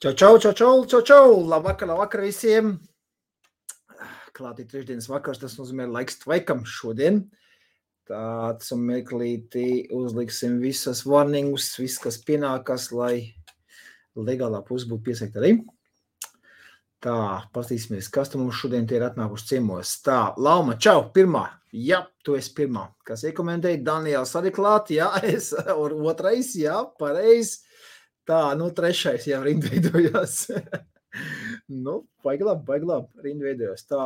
Čau! Labvakar visiem! Klātī trešdienas vakars, tas nozīmē laiks tvaikam šodien. Tāds un meklītī uzliksim visas warningus, viss, kas pienākas, lai legālā puse būtu piesakta arī. Tā, pastīsimies, kas tu mums šodien tie ir atnākuši ciemos. Tā, Lauma, čau, pirmā. Jā, tu esi pirmā. Kas iekomentēja? Daniels arī klāt, jā, es, otrais, jā, pareizi. Tā, trešais jau rindveidojās. Baigi labi, rindveidojās. Tā,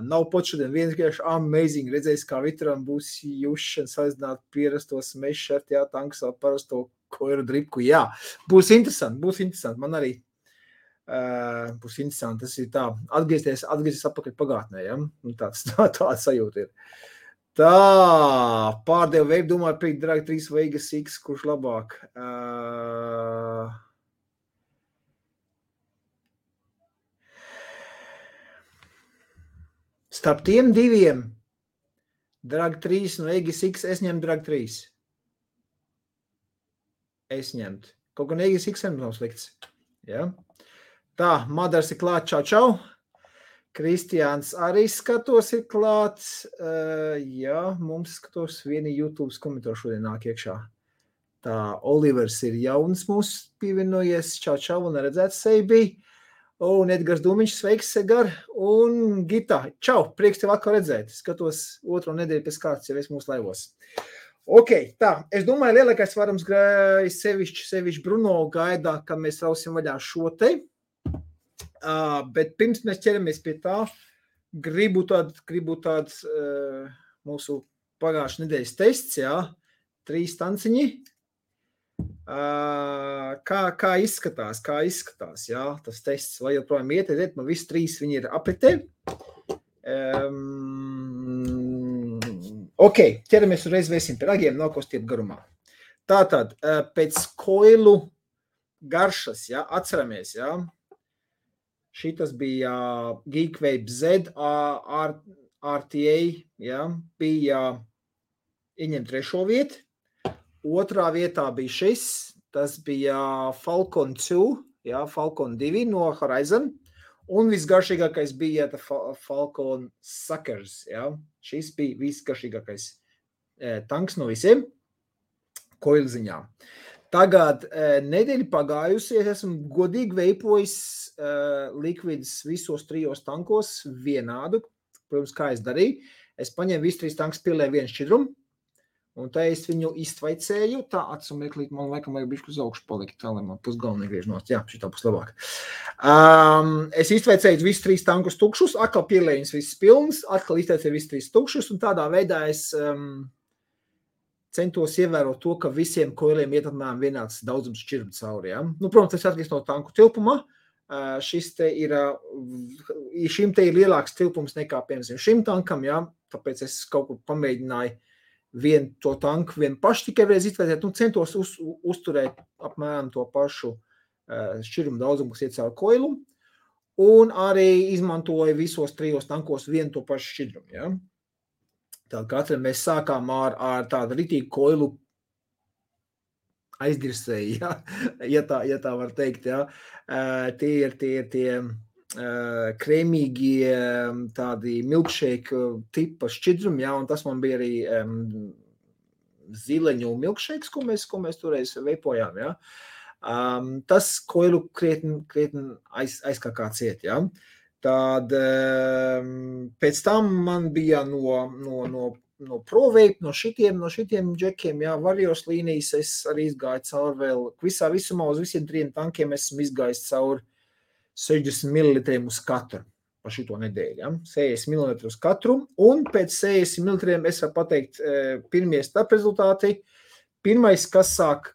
nav pot šodien vienkārši amazing. Redzēs, kā Vitram būs jušana salīdzināt pierastos meššert, jā, tanks ar parasto koiru dripku. Jā, būs interesanti. Man arī būs interesanti. Tas ir tā, atgriezties atpakaļ pagātnē, jā. Tāda sajūta ir. Tā, pārdevu veidu, domāju, pirkt Drag 3 Vegas X, kurš labāk. Starp tiem diviem, Drag 3 un Vegas X, es ņemtu Drag 3. Es ņemtu. Kaut gan Vegas X nav slikts. Ja? Tā, Madars ir klāt, čau. Kristiāns arī skatos ir klāts. Jā, mums skatos vieni YouTube komentāri šodien nāk iekšā. Tā, Olivers ir jauns mūs pievienojies. Čau, un redzēts sevi. Un Edgars Dumiņš, sveiks, Segar. Un Gita, čau, prieks tev atkal redzēt. Skatos otro nedēļu pēc kārtas, jau es mūsu laivos. Ok, tā, es domāju, lielākais varams sevišķi Bruno gaidā, kad mēs rausim vaļā šo te. Bet pirms mēs ķeramies pie tā, gribu tāds mūsu pagājušā nedēļas tests, jā, 3 tanciņi. Kā izskatās, jā, tas tests, vai joprojām iet, man visi 3 viņi ir apritē. Ok, ķeramies uzreiz vēsim pie ragiem, nav ko stiep garumā. Tātad, pēc koilu garšas, jā, atceramies, jā. Šitas bija Geekvape Z RTA, ja, bija ieņem 3. vietu. 2. vietā bija šis, tas bija Falcon 2, ja, Falcon 2 no Horizon. Un visgaršīgākais bija Falcon Suckers, ja. Šis bija visgaršīgākais tanks no visiem koilziņā. Tagad nedēļa pagājusies, esmu godīgi veipojis likvidus visos 3 tankos vienādu. Protams, kā es darīju. Es paņēmu visu 3 tankus, pielēju vienu šķidrumu, un tā es viņu iztvaicēju. Tā atsumeklīt, man laikam vajag bišķi uz augšu palikt, tā lai man pusgalva negriež nost. Jā, šitā būs labāk. Es iztvaicēju visus 3 tankus tukšus, atkal pielēju viņus visus pilnus, atkal iztvaicēju visus 3 tukšus, un tādā veidā es centos ievērot to, ka visiem koiliem iet apmēram vienāds daudzums šķirbu cauri. Ja? Protams, tas atkarīgs no tanku tilpuma. Šim te ir lielāks tilpums nekā, piemēram, šim tankam, ja? Tāpēc es kaut ko pamēģināju vienu to tanku, vienu pašu tikai reiz izvērtēt, centos uzturēt apmēram to pašu šķirbu daudzumu, kas iet cauri koilu, un arī izmantoju visos 3 tankos vienu to pašu šķidrumu. Ja? Tātad katram mēs sākām ar tādu ritīgu koilu aizdirsēju, ja tā var teikt. Ja. Tie ir krēmīgie tādi milkshake tipa šķidrumi, ja, un tas man bija arī zileņu milkshakes, ko mēs toreiz veipojām. Ja. Tas koilu krietni aizkā ciet, ja. Tad pēc tam man bija no ProVape, no šitiem džekiem, jā, Varios līnijas, es arī izgāju cauri vēl, visumā uz visiem 3 tankiem esmu izgājis cauri 60 ml uz katru pa šito nedēļu, ja, 60 ml uz katru, un pēc 60 ml es varu pateikt pirmie starp rezultāti. Pirmais, kas sāk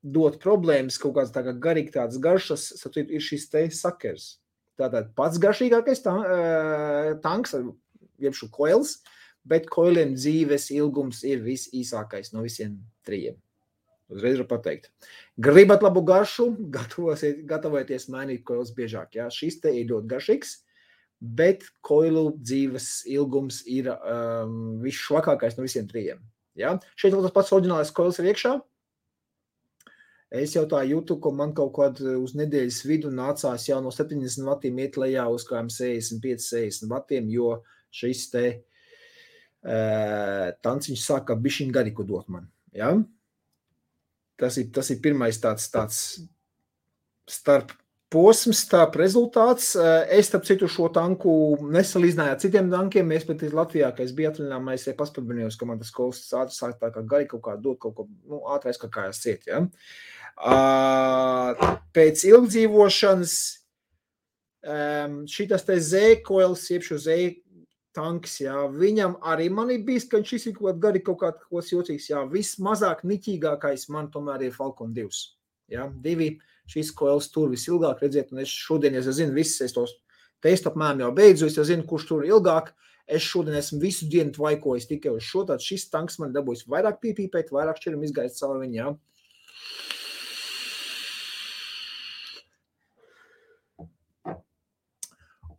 dot problēmas, kaut kāds tagad garīgi tāds garšas, ir šis te Suckers. Tātad pats garšīgākais tanks, jeb šo koils, bet koiliem dzīves ilgums ir visīsākais no visiem 3. Uzreiz var pateikt. Gribat labu garšu, gatavojieties mainīt koils biežāk. Ja? Šis te ir ļoti garšīgs, bet koilu dzīves ilgums ir visšvakākais no visiem 3. Ja? Šeit vēl tas pats oriģinālais koils ir iekšā. Es jau tā jūtu, ka man kaut kādā uz nedēļas vidu nācās jau no 70 vatiem iet lejā uz kādiem 65-60 vatiem, jo šis te tanciņš sāka bišķiņ gariku dot man. Ja? Tas ir pirmais tāds starp posms, starp rezultāts. Es, starp citu, šo tanku nesalīdzināju ar citiem tankiem. Mēs pat Latvijā, ka es biju atvaļinājumā, es paspatbinījos, ka man tas kols ātri sāk tā kā gari kaut kā dot kaut ko, ātri aizkakājās ciet, ja. Pēc ilgdzīvošanas šitas te Z-koils, iepšu Z-tanks, jā, viņam arī man ir bijis, ka šis ir kaut gari kaut kāds jocīgs, jā, vismazāk niķīgākais man tomēr ir Falcon 2, jā, 2. Šis koils tur visilgāk, redziet, un es šodien, es zinu, viss, es tos testu apmēram jau beidzu, es zinu, kurš tur ilgāk, es šodien esmu visu dienu tvaikojis tikai uz šo, tad šis tanks man dabūjis vairāk pīpīpēt, vairāk šķiram izgaist caur viņu, jā.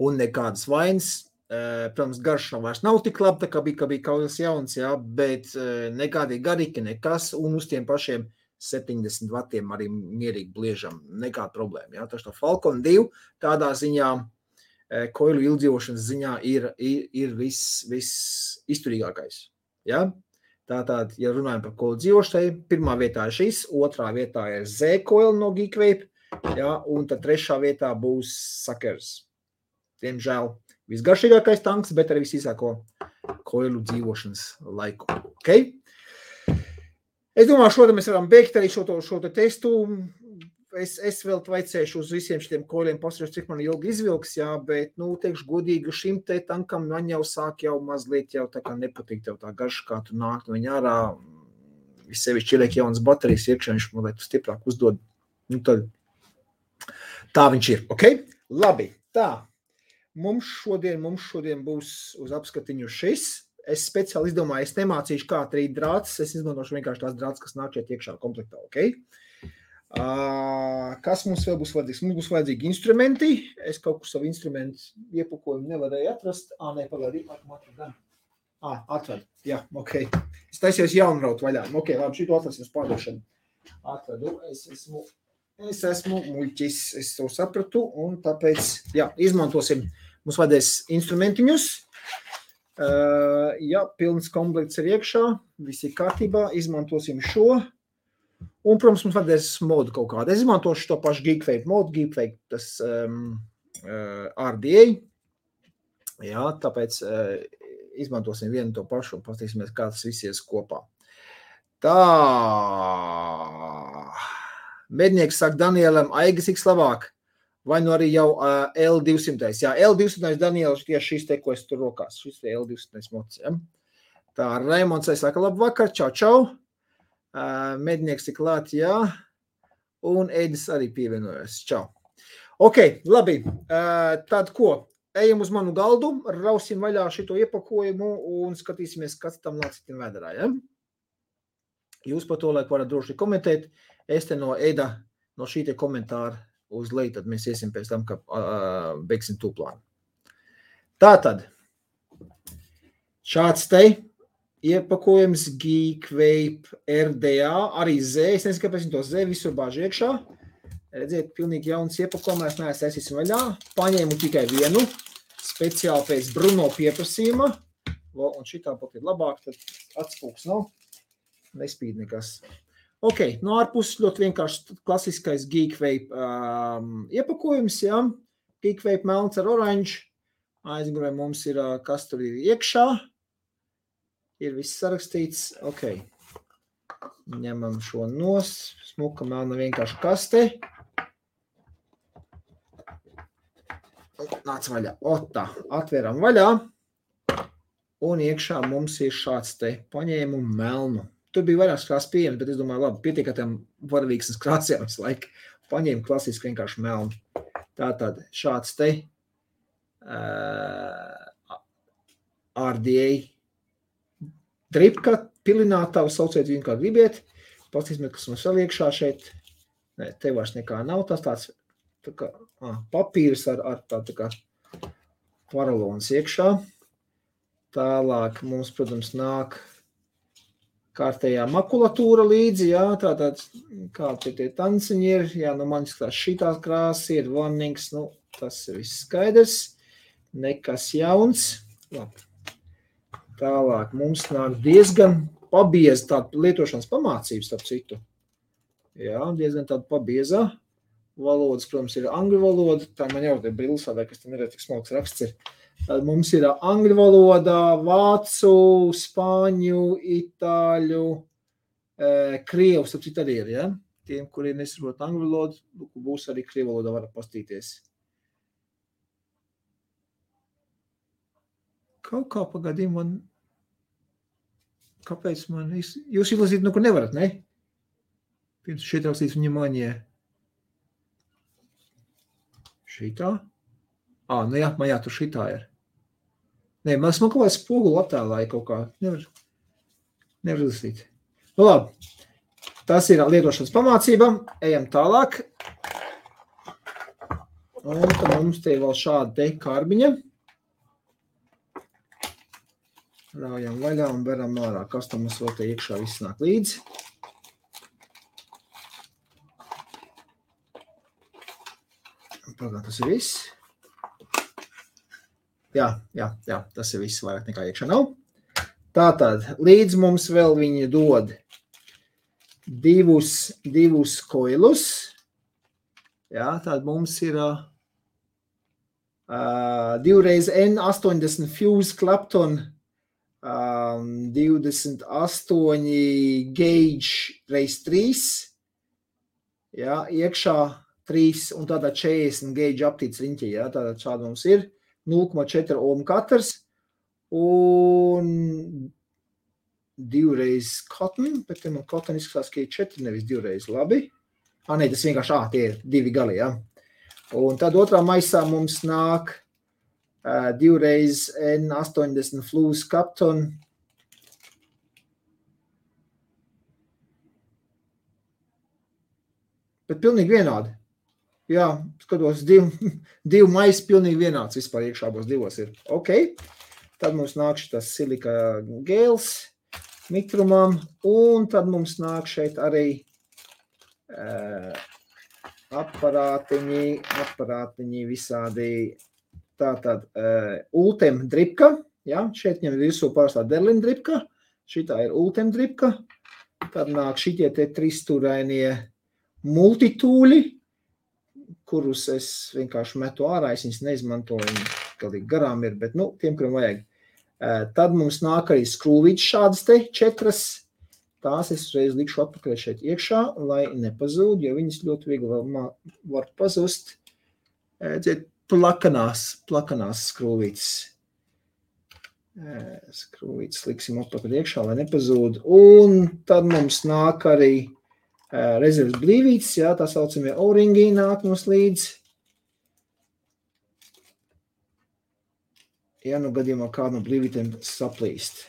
Un nekādas vainas, protams, garša vairs nav tik labi, tā kā bija kaut kas jauns, jā, bet nekādi garīgi, nekas, un uz tiem pašiem 70 vatiem arī mierīgi bliežam, nekāda problēma. Ja? Taču Falcon 2 tādā ziņā, koilu ilgdzīvošanas ziņā ir viss izturīgākais. Ja? Tātad, ja runājam par koilu dzīvošanai, pirmā vietā ir šis, otrā vietā ir Z-koil no Geekvape, ja? Un tad trešā vietā būs Sakers. Diemžēl visgaršīgākais tanks, bet arī visīsāko koilu dzīvošanas laiku. Okay? Es domāju, šodien mēs varam beigt arī šo testu. Es vēl vaicēšu uz visiem šitiem koļiem, pasarīšu, cik man ilgi izvilks, jā, bet, teikšu godīgi, šim te tankam man jau sāk jau mazliet jau tā kā nepatīk tev tā garša, kā tu nāk no viņa ārā. Vissevišķi ieliek jaunas baterijas iekšā, viņš man liek stiprāk uzdod. Tad tā viņš ir, ok? Labi, tā. Mums šodien būs uz apskatiņu šis. Es speciāli izdomāju, es nemācīšu kā trīt drāts, es izmantošu vienkārši tās drāts, kas nāk šeit iekšā komplektā, ok? Kas mums vēl būs vajadzīgs? Mums būs vajadzīgi instrumenti. Es kaut kur savu instrumentu iepakojumu nevarēju atrast. Pagaidi, atradu. Jā, ok. Es taisījos jaunraut vaļā. Ok, labi, šito atrasim uz pārdošanu. Atradu, es esmu muļķis, es to sapratu, un tāpēc, jā, izmantosim, mums vajadzēs instrumentiņus. Jā, pilns komplekts ir iekšā, viss ir kārtībā, izmantosim šo. Un, protams, mums vajadzēs modu kaut kādu. Es izmantošu to pašu Geekvape modu, Geekvape tas RDA. Jā, tāpēc izmantosim vienu to pašu un paskatīsimies, kā tas viss ies kopā. Tā. Mednieks saka Danielam, Aigas ik labāk. Vai nu arī jau L200. Jā, L200 Daniels tieši šis te, ko es tur rokās. Šis te L200 mods, ja. Tā, Raimonds saka, labu vakar, čau. Mednieks ir klāt, jā. Un Edis arī pievienojas, čau. Ok, labi. Tad ko? Ejam uz manu galdu, rausim vaļā šito iepakojumu un skatīsimies, kas tam nāc citim vēdarā, ja. Jūs par to laiku varat droši komentēt. Es te no Eda, no šī te komentāra uz leju, tad mēs iesim pēc tam, ka beigsim tūplānu. Tātad, šāds te iepakojums Geekvape RDA, arī Z, es nezinu, kāpēc to Z visur bāž iekšā. Redziet, pilnīgi jauns iepakojumā, es neesmu vaļā. Paņēmu tikai vienu, speciāli pēc Bruno pieprasījuma. Un šitā pat ir labāk, tad atspūks nav, nespīd nekas. Ok, no ārpuses ļoti vienkārši klasiskais Geekvape iepakojums, jā. Geekvape melns ar oranžu. Aizmugurē mums ir, kas tur ir iekšā. Ir viss sarakstīts. Ok. Ņemam šo nos. Smuka melna vienkārši kaste. Nāc vaļā. Tā, atveram vaļā. Un iekšā mums ir šāds te paņēmu melnu. Tur bija vairākas krāsas pieejams, bet es domāju, labi, pietiek ar tiem varavīksnes krāsiem visu laiku. Paņēmu klasiski vienkārši melnu. Tātad šāds te RDA dripka, pilinātava, sauciet viņu kā gribiet. Pastīsimies, kas mums vēl iekšā šeit. Nē, te vairs nekā nav. Tas tāds tā kā, papīrs ar tā kā paralons iekšā. Tālāk mums, protams, nāk kārtējā makulatūra līdzi, jā, tātad, kā tie tanciņi ir, jā, nu man skatās šitās krāsas ir, warnings, nu, tas ir viss skaidrs, nekas jauns, labi. Tālāk mums nāk diezgan pabieza tāda lietošanas pamācības, starp citu. Jā, diezgan tāda pabieza. Valodas, protams, ir angļu valoda, tā man jau te brilsādē, kas te neredz, tik smalks raksts ir. Tad mums ir angļu valoda, vācu, spāņu, itāļu, krievu, starp citu arī ir, ja? Tiem, kuri nesaprot angļu valodu, būs arī krievu valoda, var pastīties. Kaut kā pagadījum man, kāpēc man, jūs izlasīt, nu, kur nevarat, ne? Pirms šeit rakstīts внимание. Šitā? Nu jā, man jā, tur šitā ir. Nē, man kaut kā spogulu attēlāja kaut kā. Nevar izlasīt. Nu labi, tas ir lietošanas pamācība. Ejam tālāk. Un tad mums te vēl šāda te karbiņa. Raujam vaļā un beram ārā. Kas tam mums vēl te iekšā viss nāk līdzi. Pagad, tas ir viss. Jā, tas ir viss, vairāk nekā iekšā nav. Tātad, līdz mums vēl viņi dod divus koilus. Jā, tātad mums ir 2x N80 Fuse Clapton 28 gauge x3. Jā, iekšā 3 un tādā 40 gauge aptīts riņķi, jā, tātad šāda mums ir 0,4 ohm katrs un 2x cotton, bet te man cotton izskatās, ka ir 4, nevis 2x, labi. Nē, tas vienkārši, tie ir 2 gali, jā. Un tad otrā maisā mums nāk 2x N80 Fuse Clapton. Bet pilnīgi vienādi. Jā, skatos, divu maisi pilnīgi vienāds vispār iekšā abos divos ir. Ok, tad mums nāk šitas silika gēls mitrumam, un tad mums nāk šeit arī aparātiņi visādi, tātad Ultem dripka, jā, šeit ņem virsū parastā Derlin dripka, šitā ir Ultem dripka, tad nāk šitie te tristūrainie multitūļi, kurus es vienkārši metu ārā, es viņus neizmantoju, galīgi garām ir, bet, tiem, kuriem vajag. Tad mums nāk arī skrūvītes šādas te 4, tās es uzreiz likšu atpakaļ šeit iekšā, lai nepazūd, jo viņas ļoti viegli var pazust. Plakanās skrūvītes. Skrūvītes liksim atpakaļ iekšā, lai nepazūd. Un tad mums nāk arī rezerves blīvītes, jā, tā saucamie O-ringi nāk mums līdz. Ja nu gadījumā kādu no blīvītēm saplīst.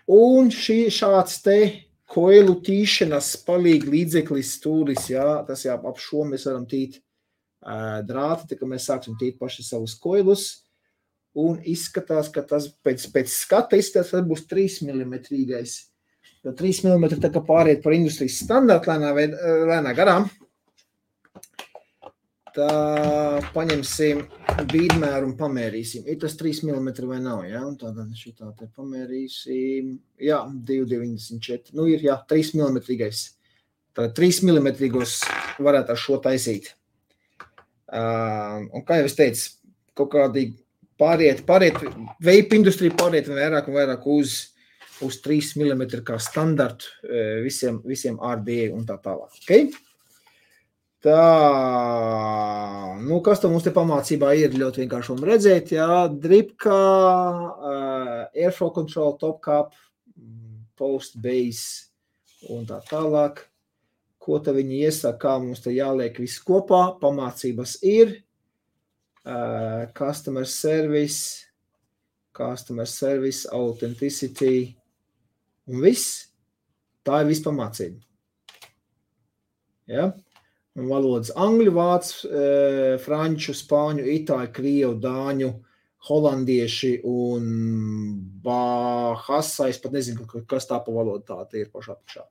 Un šāds te koilu tīšanas palīgi līdzeklis stūris, jā, tas jā, ap šo mēs varam tīt drāti, tā kā mēs sāksim tīt paši savus koilus. Un izskatās, ka tas pēc skata izskatās, ka tas būs 3 mm. Jo 3 mm tā kā pāriet par industrijas standartu lēnā garām. Tā paņemsim bīdmēru un pamērīsim. Ir tas 3 mm vai nav, jā? Un tātad šitā te pamērīsim. Jā, 2,94. Nu ir, jā, 3 mm. Tātad 3 mm varētu ar šo taisīt. Un kā jau es teicu, kaut kādi pāriet, vape industrija pāriet vairāk un vairāk uz 3 mm kā standartu visiem RDA un tā tālāk. Okay? Tā, kas tam mums te pamācībā ir ļoti vienkārši redzēt, jā, dripka, airflow control, top cap, post base un tā tālāk. Ko te viņi iesaka, kā mums te jāliek viss kopā, pamācības ir, customer service, authenticity un viss. Tā ir viss pamācība. Ja? Un valodas angļu, vācu, franču, spāņu, itāļu, krievu, dāņu, holandieši un bahasa, es pat nezinu, kas tā pa valodu tā ir pašā apakšā.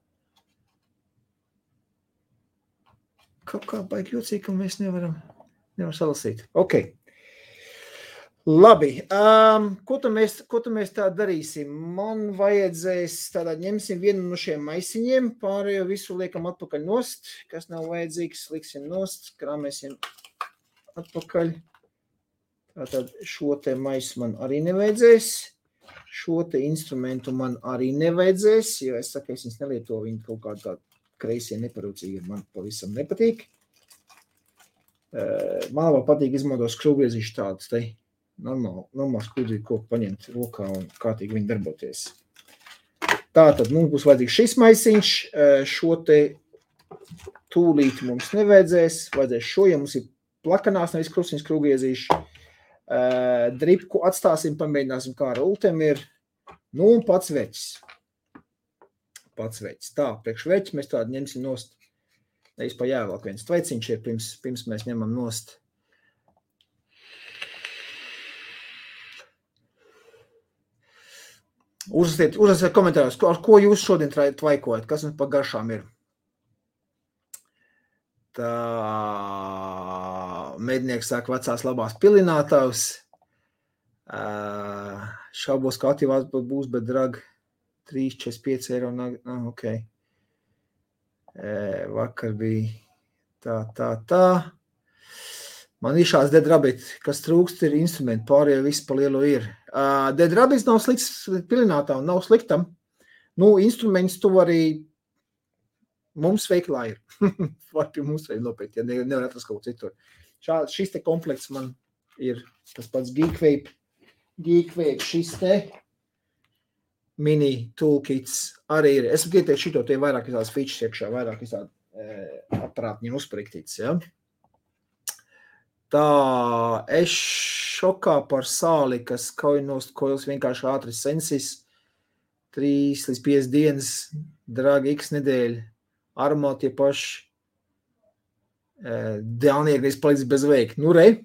Kaut kā baigi jocīgi, ka mēs nevaram salasīt. Ok. Labi. Ko tu mēs tā darīsim? Man vajadzēs, tādā ņemsim vienu no šiem maisiņiem, pārējo visu liekam atpakaļ nost, kas nav vajadzīgs, liksim nost, krāmēsim atpakaļ. Tātad šo te maisu man arī nevajadzēs, šo te instrumentu man arī nevajadzēs, jo es saku, es viņas nelietoju, viņi kaut kādā tā kreisie neparūcīgi, man pavisam nepatīk. Man vēl patīk izmantot skrūvgriezīšu tādus te normāli skrūvgriezīšu koku paņemt rokā un kārtīgi viņi darboties. Tātad mums būs vajadzīgs šis maisiņš, šo te tūlīt mums nevajadzēs, vajadzēs šo, ja mums ir plakanās, nevis krustiņas skrūvgriezīši. Dripku atstāsim, pamēģināsim, kā ar ultem ir. Nu, un pats veķis. Tā, priekš veķi mēs tādu ņemsim nost. Nevis pa jāvēlāk viens tveiciņš ir, pirms mēs ņemam nost. Uzrasiet komentāros, ar ko jūs šodien tvaikojat, kas mums pa garšām ir. Tā mednieks saka vecās labās pilinātavs. Šaubos, ka aktīvās būs, bet drag 3,45 eiro. Ok. Vakar bija tā. Man ir šāds Dead Rabbit, kas trūkst ir instrumenti, pārējie visi pa lielu ir. Dead Rabbit nav slikts pilinātavs, nav sliktam. Nu, instruments tu vari mums veiklā ir. Var pie mums veikt nopēt, ja nevar atrast kaut citur. Šis te komplekts man ir tas pats Geekvape, šis te mini toolkits arī ir. Es gribu teikt šito, tie vairāk izādas features iekšā, vairāk izāda aparātņi uzpriktīts, ja. Tā, es šokā par sāli, kas kaujinost koils vienkārši ātri sensis, 3 līdz 5 dienas, dragi X nedēļa. Armā tie paši dēlnieki palicis bez veika. Nu re.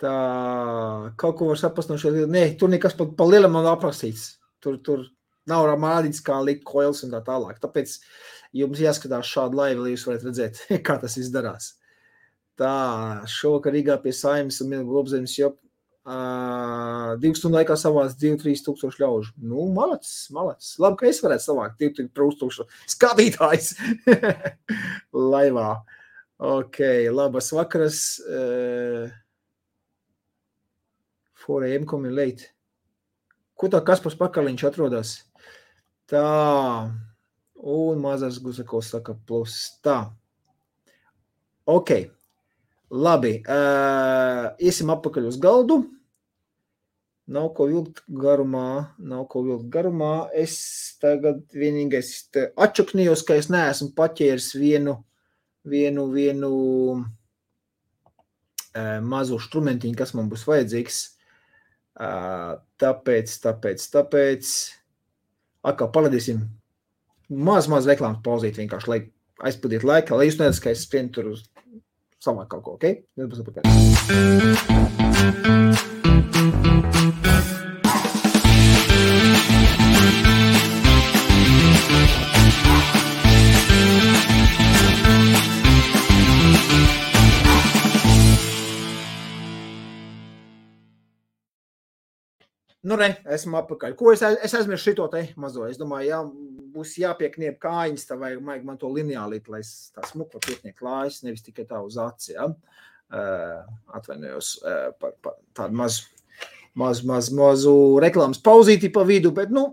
Tā, kaut ko var saprast no šo. Nē, tur nekas pa lielam nav aprakstīts. Tur nav rādīts, kā likt koils un tā tālāk. Tāpēc jums jāskatās šādu laivu, lai jūs varat redzēt, kā tas izdarās. Tā, šovakar Rīgā pie Saeimas un Milgu Globzemes jop 2 stundu laikā savāc 2-3 tūkstoši ļaužu. Nu, malacis. Labi, ka es varētu savākt 2-3 tūkstoši skatītājs laivā. Ok, labas vakaras. 4 AM coming late. Ko tā Kaspars Pakaliņš atrodas? Tā. Un mazās Gusakovs saka plus. Tā. Ok. Labi, iesim apakaļ uz galdu. Nav ko vilkt garumā. Es tagad vienīgais atšaknījos, ka es neesmu paķēris vienu mazu štrumentiņu, kas man būs vajadzīgs. Tāpēc. Atkal paladīsim maz reklāmas pauzīt vienkārši, lai aizpildītu laiku, lai jūs neredz, ka es skrienu tur uz savāk kaut ko, ok? Nebūs apakaļ. Nu re, esmu apakaļ. Ko es aizmirsu šito te mazo? Es domāju, būs jāpiekniep kājiņas, tā vajag man to lineālīt, lai es tā smuku piekniep klājas, nevis tikai tā uz aci, ja? Atvainojos par tādu mazu reklāmas pauzīti pa vidu, bet, nu,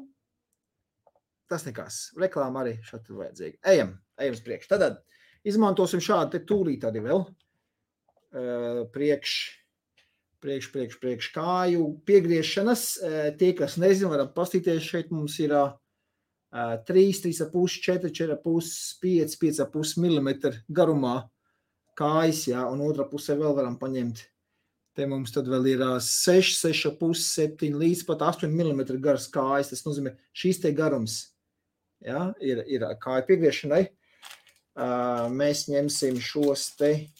tas nekas. Reklāma arī šādi vajadzīga. Ejam uz priekšu. Tad izmantosim šādu te tūlīt arī vēl. Priekš kāju piegriešanas. Tie, kas nezinu, varam pastīties, šeit mums ir 3, 3,5, 4, 4,5, 5, 5,5 mm garumā kājas, jā, un otrā pusē vēl varam paņemt. Te mums tad vēl ir 6, 6,5, 7 līdz pat 8 mm garas kājas. Tas nozīmē, šīs te garums, jā, ir kāja piegriešanai. Mēs ņemsim šos te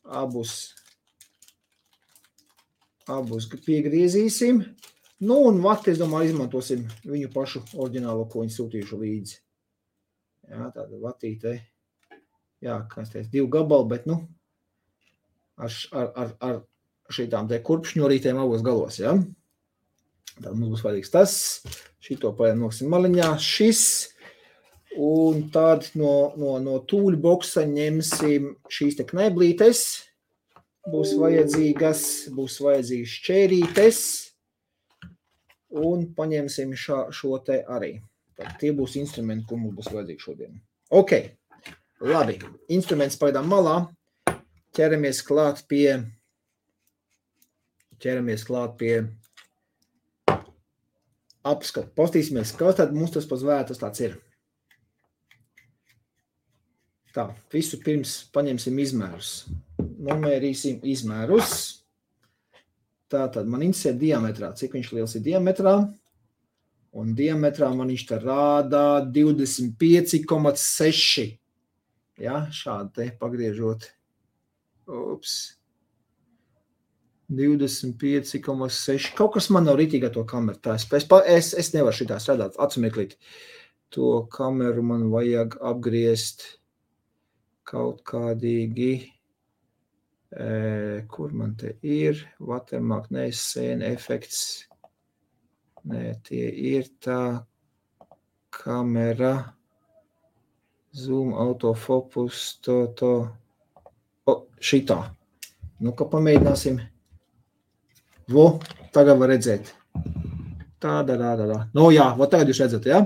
abus Abus piegriezīsim. Nu, un vati, es domāju, izmantosim viņu pašu oriģinālo, ko viņi sūtījuši līdzi. Jā, tāda vatīte. Jā, kas teica, 2 gabali, bet, nu, ar šitām te kurpšņorītēm abos galos, jā. Tad mums būs vajadzīgs tas. Šito noksim maliņā. Šis. Un tad no tūļu boksa ņemsim šīs te kneblītes. Būs vajadzīgas šķērītes. Un paņemsim šo te arī. Tad tie būs instrumenti, ko mums būs vajadzīgi šodien. Ok, labi. Instruments pagaidām malā. Ķeramies klāt pie apskatu. Pastīsimies, kas tad mums tas pēc vērtas tāds ir. Tā, visu pirms paņemsim izmērus. Nomērīsim izmērus. Tātad man interesē diametrā. Cik viņš liels ir diametrā? Un diametrā man viņš te rādā 25,6. Ja, šādi te pagriežot. Ups. 25,6. Kaut kas man nav ritīgi ar to kameru. Tā, es nevaru šitā strādāt. Atsumeklīt. To kameru man vajag apgriezt kaut kādīgi. Kur man te ir? Watermark, ne, scene effects. Nē, tie ir tā kamera. Zoom, autofocus, to. O, šitā. Nu, ka pamēģināsim. Vo, tagad var redzēt. Tāda. Nu, jā, vo tagad jūs redzat, jā?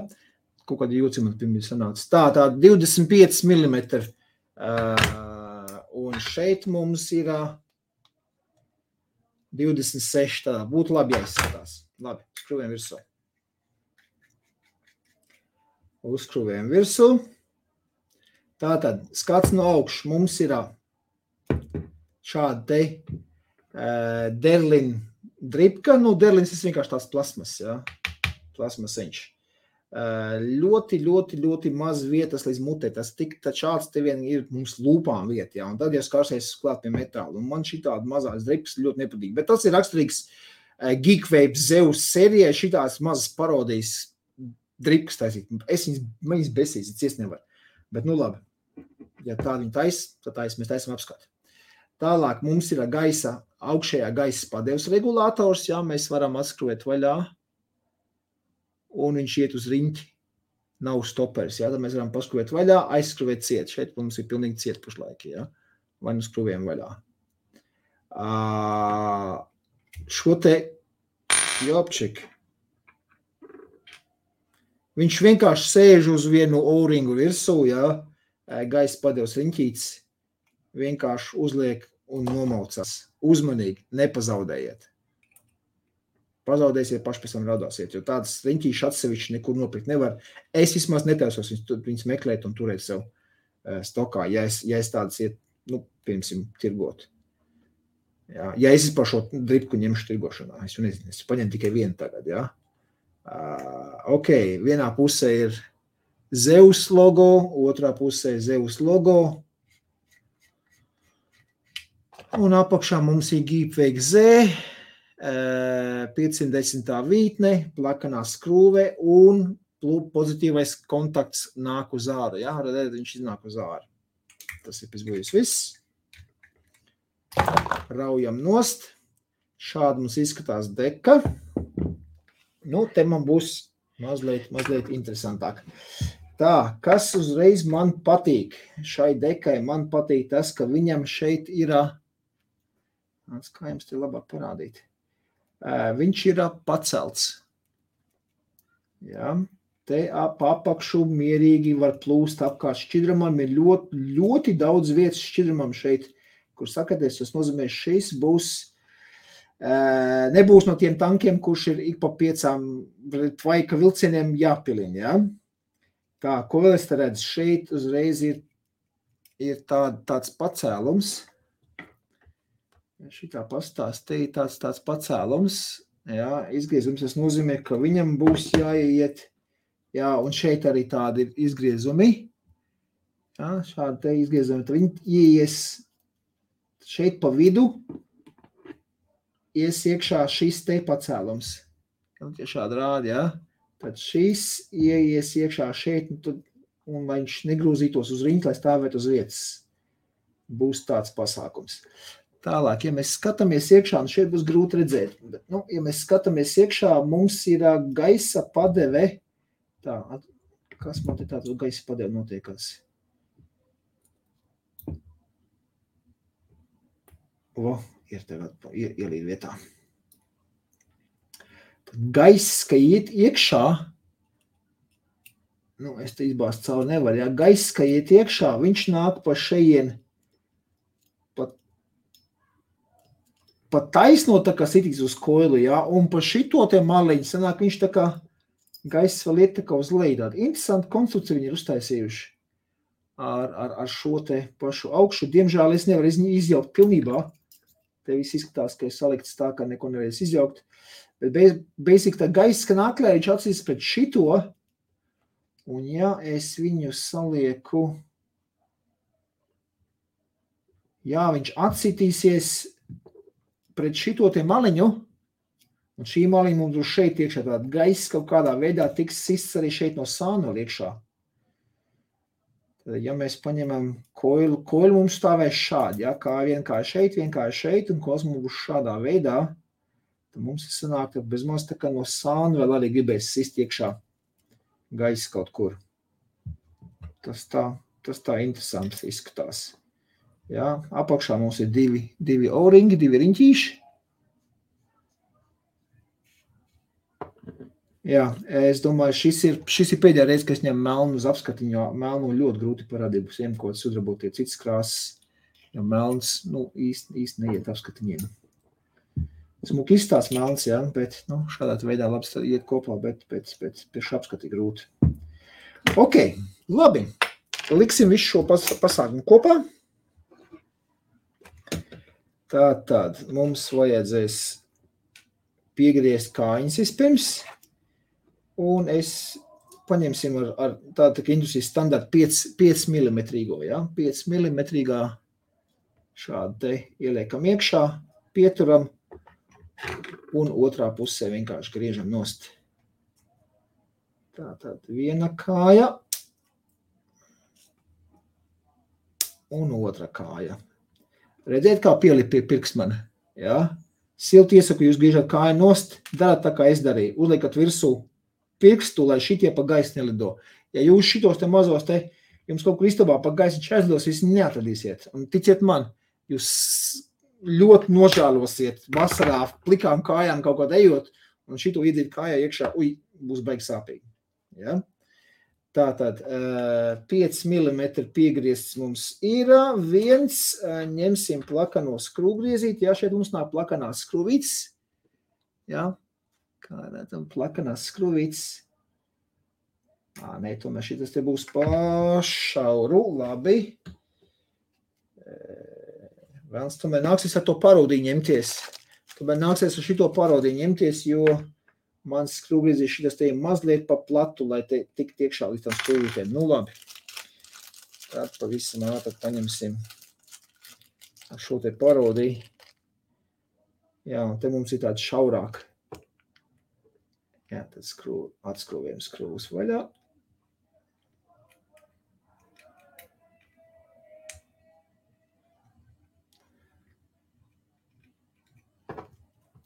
Kaut kādi jūci man pirmie sanāca. Tā 25 mm. Un šeit mums ir 26. Tā būtu labi jāizskatās. Labi, skrūvējam virsū. Uzskrūvējam virsū. Tātad, skats no augšas mums ir šāda te derlin dripka. Nu, derlins ir vienkārši tās plasmas, jā. Plasmasiņš. Ļoti maz vietas līdz mutē. Tas šāds te vien ir mums lūpām vieta, jā. Un tad jau skārsies klāt pie metāla. Un man šitāda mazās dripas ļoti nepatīk. Bet tas ir raksturīgs Geekwave Zeus serijai šitās mazas parodijas dripas taisīt. Es viņas besīs, es nevaru. Bet nu labi. Ja tā viņa tad mēs taisam apskatu. Tālāk mums ir augšējā gaisa padevs regulators, jā, mēs varam atskrūvēt vaļā, un viņš iet uz riņķi, nav stoperis, jā, tad mēs varam paskrūvēt vaļā, aizskrūvēt ciet, šeit mums ir pilnīgi ciet pašlaik, jā, vai nu skrūvējam vaļā. Šo te, jopčik, viņš vienkārši sēž uz vienu O-ringu virsū, jā, gaisa padevs riņķīts, vienkārši uzliek un nomaucās. Uzmanīgi, nepazaudējiet. Pazaudēsiet, paši pēc tam raudāsiet, jo tādas riņķīšas atsevišķi nekur nopirkt nevar. Es vismaz netaisos viņus meklēt un turēt sev stokā, ja es tādas iet, nu, piemēram, tirgot. Jā, ja es par šo dripku ņemšu tirgošanā, es nezinu, es paņemu tikai vienu tagad, jā. Ok, vienā pusē ir Zeus logo, otrā pusē Zeus logo. Un apakšā mums ir Geekwave Z, 510. vītne, plakanā skrūve un pozitīvais kontakts nāk uz āru. Jā, redzēt, viņš iznāk uz āru. Tas ir pizbūjis viss. Raujam nost. Šādi mums izskatās deka. Nu, te man būs mazliet interesantāk. Tā, kas uzreiz man patīk? Šai dekai man patīk tas, ka viņam šeit ir, kā jums te labāk parādīt, viņš ir pacelts. Jā, te apakšu mierīgi var plūst apkārt šķidrumam, ir ļoti daudz vietas šķidrumam šeit, kur sakaties, tas nozīmē, šis būs, nebūs no tiem tankiem, kurš ir ik pa 5 tvaika vilcieniem jāpilina, jā. Tā, ko vēl es te redzu? Šeit uzreiz ir tāds pacēlums. Šitā pastās, te ir tāds pacēlums. Jā, izgriezums, tas nozīmē, ka viņam būs jāiet. Jā, un šeit arī tādi ir izgriezumi. Jā, šādi te izgriezumi. Tad viņi ieies šeit pa vidu. ies iekšā šis te pacēlums. Šādi rādi, ja? Tad šis ieies iekšā šeit, un lai viņš negrūzītos uz riņķi, lai stāvētu uz vietas. Būs tāds pasākums. Tālāk, ja mēs skatāmies iekšā, un šeit būs grūti redzēt, bet, ja mēs skatāmies iekšā, mums ir gaisa padeve. Tā, kas man te tāds gaisa padeve notiekās? Ir tagad ielīd vietā. Gaiss, ka iet iekšā, es te izbāzt cauri nevaru, ja gaiss, ka iet iekšā, viņš nāk pa šeien, pa taisno tā kā sitīs uz koilu, ja, un pa šito te maliņu sanāk, viņš tā kā gaiss vēl iet tā kā uz leju. Interesanti konstrukciju viņi ir uztaisījuši ar šo te pašu augšu. Diemžēl es nevaru izjaukt pilnībā. Te viss izskatās, ka ir salikts tā, ka neko nevarēs izjaukt. Bet basic tā gaiss, ka naklē, viņš atsīs pret šito, un ja es viņu salieku, viņš atsitīsies pret šito te maliņu, un šī maliņa mums būs šeit iekšā, tāda gaiss kaut kādā veidā tiks sists arī šeit no sāna iekšā. Tad, ja mēs paņemam koilu mums stāvēs šādi, ja, kā vienkārši šeit, un koils mums būs šādā veidā, tad mums ir sanāk, ka bez maz tā kā no sāna vēl arī gribēs sist iekšā gaiss kaut kur. Tas tā interesanti izskatās. Jā, apakšā mums ir divi O-ringi, divi riņķīši. Jā, es domāju, šis ir pēdējā reize, ka es ņemu melnu uz apskatiņu, jo melnu ļoti grūti parādīt, būs kaut sudrabotie citas krāsas, jo melns, īsti neiet apskatiņiem. Smuki izstās melns, jā, bet, šādā veidā labi iet kopā, bet pēc apskati grūti. Ok, labi, liksim visu šo pasākumu kopā. Tātad mums vajadzēs piegriezt kājiņas vispirms, un es paņemsim ar tādu industrijas standartu 5 mm, ja? 5 mm šādi te ieliekam iekšā, pieturam, un otrā pusē vienkārši griežam nost. Tātad viena kāja, un otra kāja. Redziet, kā pielikt pie pirkstmana, ja? Silti iesaku, jūs griežat kāju nost, darat tā, kā es darīju. Uzliekat virsū pirkstu, lai šitie pa gaisu nelido. Ja jūs šitos te mazos te, jums kaut kur istabā pa gaisu čēzdos, jūs neatradīsiet. Un ticiet man, jūs ļoti nožēlosiet vasarā plikām kājām kaut kādā ejot, un šito iedzīt kājā iekšā, būs baigi sāpīgi. Ja? Tātad 5 mm piegriezts mums ir, ņemsim plakano skrūvgriezīti, ja šeit mums nāk plakanās skrūvītes, ja, kā redzam, plakanās skrūvītes, tomēr šitas te būs pašauru, labi, vēlams, tomēr nāksies ar to parodīju ņemties, šito parodīju ņemties, jo mans skrūvgriezīši šitas te ir mazliet pa platu, lai te tik tiekšā līdz tam skrūvītēm. Labi. Tad pavisam ātri paņemsim ar šo te parodiju. Jā, un te mums ir tāds šaurāk. Jā, tad atskrūvējam skrūvus vaļā.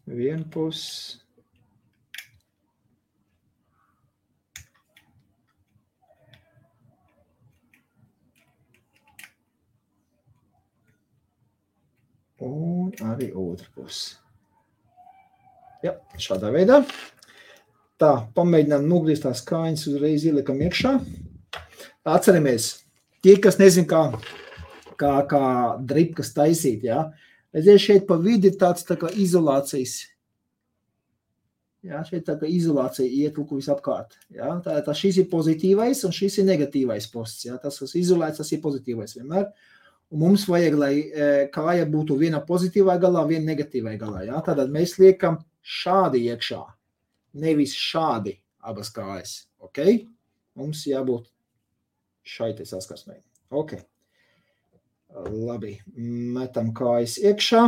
Vienu pusi. Un arī otra pusi. Jā, šādā veidā. Tā, pamēģinām nogriezt tās kājiņas, uzreiz ielikam iekšā. Atceramies, tie, kas nezin, kā dripkas taisīt, jā. Redziet, šeit pa vidi ir tāds tā kā izolācijas. Jā, šeit tā kā izolācija iet lukuvis apkārt. Jā, tā šis ir pozitīvais un šis ir negatīvais posts. Jā. Tas, kas izolēts, tas ir pozitīvais vienmēr. Un mums vajag, lai kāja būtu viena pozitīvā galā, viena negatīvā galā. Ja? Tātad mēs liekam šādi iekšā, nevis šādi abas kājas. Okay? Mums jābūt šai te saskarsmei. Okay. Labi, metam kājas iekšā.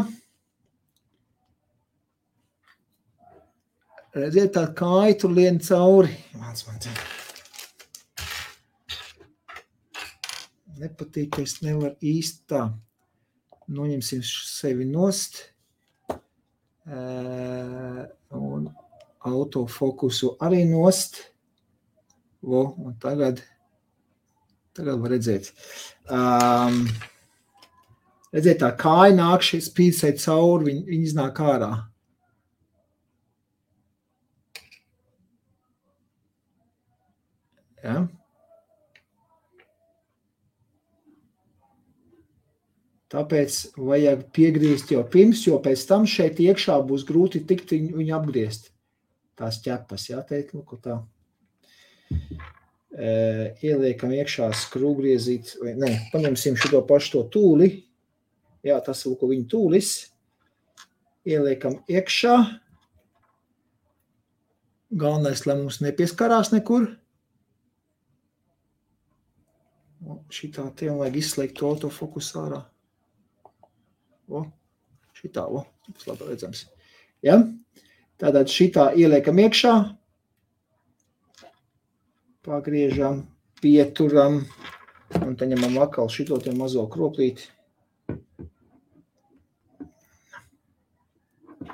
Redziet, tā kāja tur lien cauri. Vāc man te. Nepatīk, ka es nevaru īsti tā. Noņemsim sevi nost. Un autofokusu arī nost. Un tagad var redzēt. Redziet, tā kāja nāk šeit spīdsai cauri, viņi iznāk ārā. Ja? Tāpēc vajag piegriezt jau pirms, jo pēc tam šeit iekšā būs grūti tikt viņu apgriezt. Tās ķepas, jā, teikt, lūk, tā. Ieliekam iekšā skrūvgriezīt, paņemsim šito pašu to tūli. Jā, tas lūk, viņa tūlis. Ieliekam iekšā. Galvenais, lai mums nepieskarās nekur. Šitā te vajag izslēgt to autofokusu ārā. Šitā, tas labi redzams. Ja? Tātad šitā ieliekam iekšā, pagriežam, pieturam, un te ņemam atkal šito te mazo kroplīti.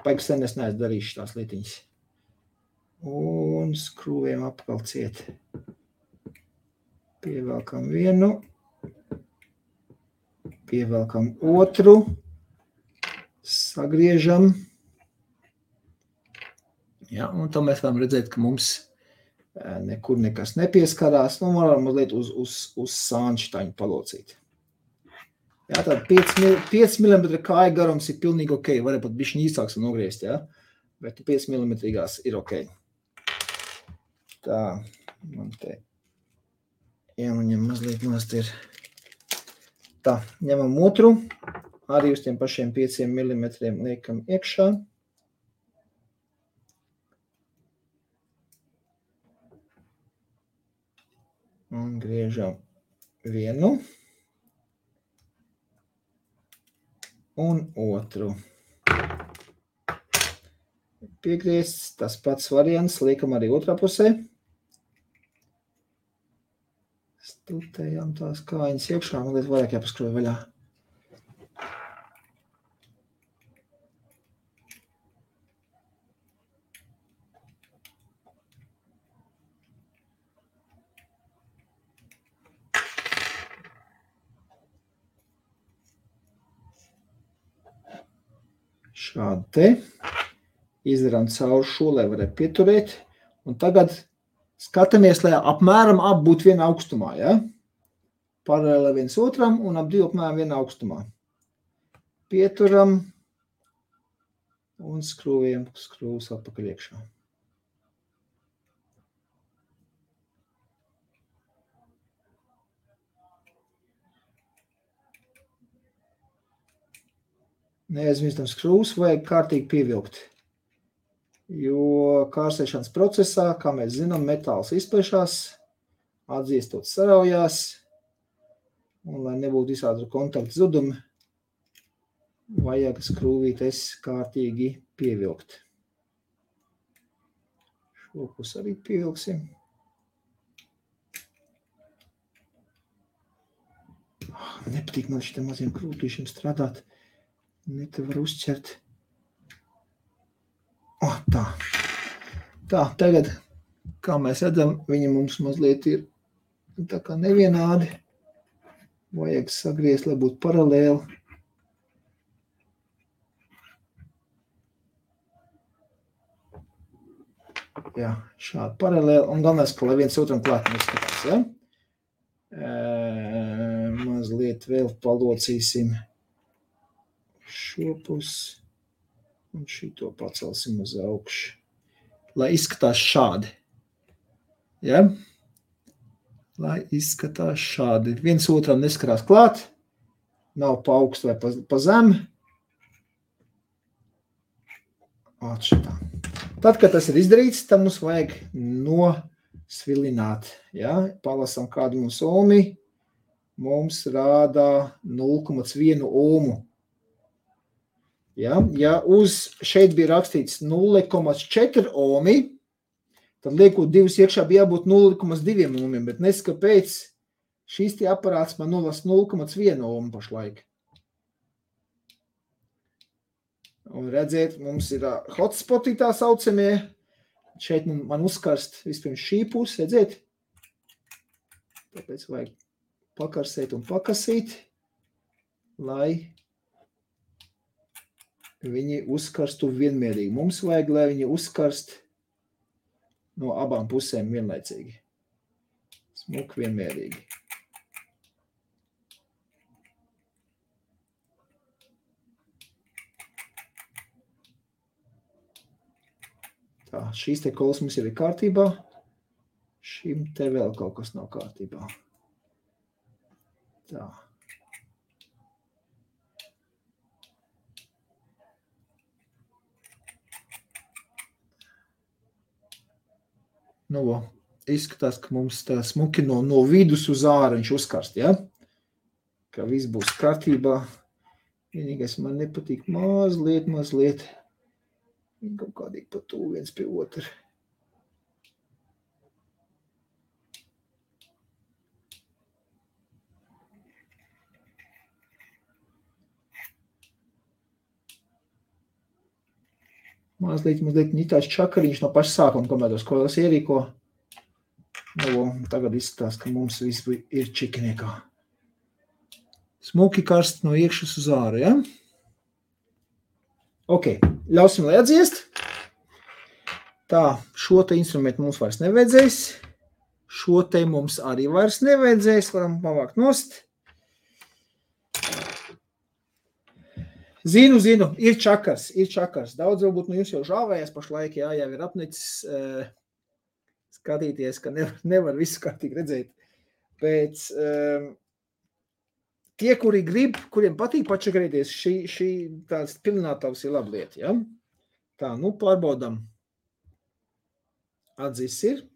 Paiks sen es neesmu darījuši tās lietiņas. Un skrūvējam apkal ciet. Pievelkam vienu, pievelkam otru. Sagriežam. Ja, un tam mēs varam redzēt, ka mums nekur nekas nepieskarās. Nu, varam mazliet uz sāņu šitaņu palocīt. Ja, tad 5 mm kāja garums ir pilnīgi ok. Varētu pat bišķiņ īsāks nogriezt, ja? Bet 5 mm ir ok. Tā, man te jāmaņem mazliet nost ir. Tā, ņemam otru. Arī uz tiem pašiem 5 mm liekam iekšā. Un griežam vienu. Un otru. Piegriezts, tas pats variants, liekam arī otrā pusē. Stutējām tās kājiņas iekšā, mazliet vairāk jāpaskroja vaļā. Šādi te. Izdarām cauri šo, lai varētu pieturēt. Un tagad skatāmies, lai apmēram ap būtu viena augstumā, ja? Paralēli viens otram un ap divu apmēram viena augstumā. Pieturam un skrūvējam skrūvus atpakaļ iekšā. Neaizmirstam skrūvus, vajag kārtīgi pievilkt. Jo kārsēšanas procesā, kā mēs zinām, metāls izplešās, atdziestot saraujās, un lai nebūtu visādi kontaktu zudumi, vajag skrūvītes kārtīgi pievilkt. Šo pusi arī pievilksim. Nepatīk man šitiem maziem krūtīšiem strādāt. Ne te var uzķert. Tā. Tā, tagad, kā mēs redzam, viņi mums mazliet ir tā kā nevienādi. Vajag sagriezt, lai būtu paralēli. Jā, šādi paralēli. Un galvenais, ka lai viens otram klāt neskatās, ja? Mazliet vēl palocīsim šo pusi. Un šito pacelsim uz augšu, lai izskatās šādi. Ja? Lai izskatās šādi. Viens otram neskarās klāt, nav pa augstu vai pa zemi. Atšitā. Tad, kad tas ir izdarīts, tad mums vajag nosvilināt. Ja? Palasam kādu mums ohmi. Mums rādā 0,1 ohmu. Ja uz šeit bija rakstīts 0,4 ohmi, tad liekot divus iekšā bija jābūt 0,2 ohmiem, bet nes kāpēc šīs tie aparāts man nolasa 0,1 ohmu pašlaik. Un redziet, mums ir hotspoti tā saucamie. Šeit man uzkarst vispirms šī puse, redziet? Tāpēc vajag pakarsēt un pakasīt, lai viņi uzkarstu vienmērīgi. Mums vajag, lai viņi uzkarst no abām pusēm vienlaicīgi. Smuk vienmērīgi. Tā, šīs te kolas mums jau ir kārtībā. Šim te vēl kaut kas nav kārtībā. Tā. Nu, izskatās, ka mums tā smuki no vidus uz ārā viņš uzkarst, ja? Ka viss būs kārtībā. Vienīgais man nepatīk mazliet. Viņi kaut kādīgi pa tuvu viens pie otra. Mazliet tāds čakariņš no paša sākuma, kamēr tos koilas ierīko. Nu, tagad izskatās, ka mums viss ir čikiniekā. Smuki karst no iekšas uz āru, ja? Ok, ļausim, lai atdziest. Tā, šo te instrumentu mums vairs nevajadzēs. Šo te mums arī vairs nevajadzēs. Varam pavākt nost. Zinu, ir čakars. Daudz varbūt no jums jau žāvējās pašlaik, jā, jau ir apnicis skatīties, ka nevar visu kārtīgi redzēt. Pēc tie, kuri grib, kuriem patīk pačakarīties, šī tāds pilinātavs ir laba lieta, ja? Tā, nu pārbaudam. Atzis ir.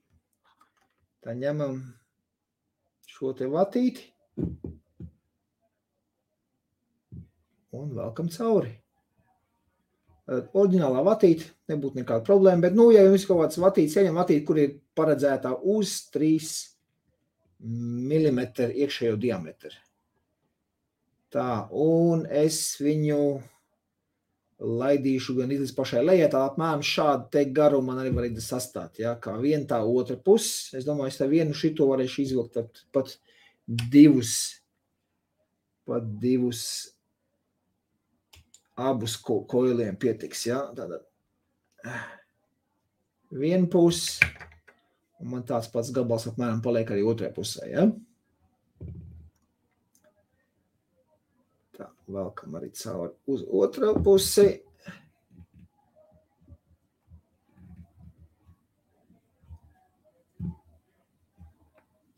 Tā ņemam šo te vatīti. Un velkam cauri. Oriģinālā vatīte, nebūtu nekāda problēma, bet, nu, ja jums kaut kāds vatītes, ieņem vatīti, kur ir paredzētā uz 3 mm iekšējo diametru. Tā, un es viņu laidīšu gan līdz pašai lejai, tā apmēram šādu te garu man arī var sastāt, ja, kā viena tā otra puses. Es domāju, es tā vienu šito varēšu izvilkt pat divus abus koiliem pietiks, ja, tātad viena puse, un man tāds pats gabals apmēram paliek arī otrajā pusē, ja. Tā, velkam arī cauri uz otrā pusi.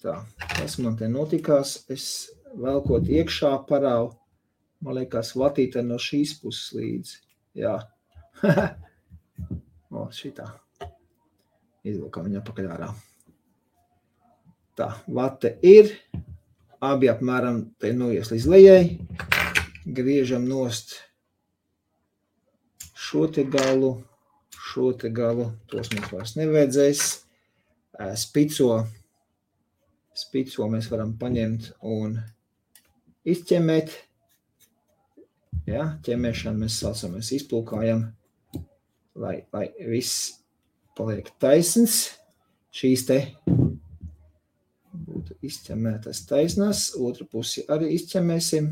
Tā, tas man te notikās, es velkot iekšā parāvu, man liekas, vatīte no šīs puses līdzi. Jā. O, šitā. Izvilkam viņu apakaļ ārā. Tā, vate ir. Abi apmēram te noies līdz lejai. Griežam nost šo te galu. Tos mums vairs nevajadzēs. Spico mēs varam paņemt un izķemēt. Ja, ķemēšanu mēs saucam, mēs izplūkājam, lai viss paliek taisns. Šīs te būtu izķemētas taisnās, otru pusi arī izķemēsim.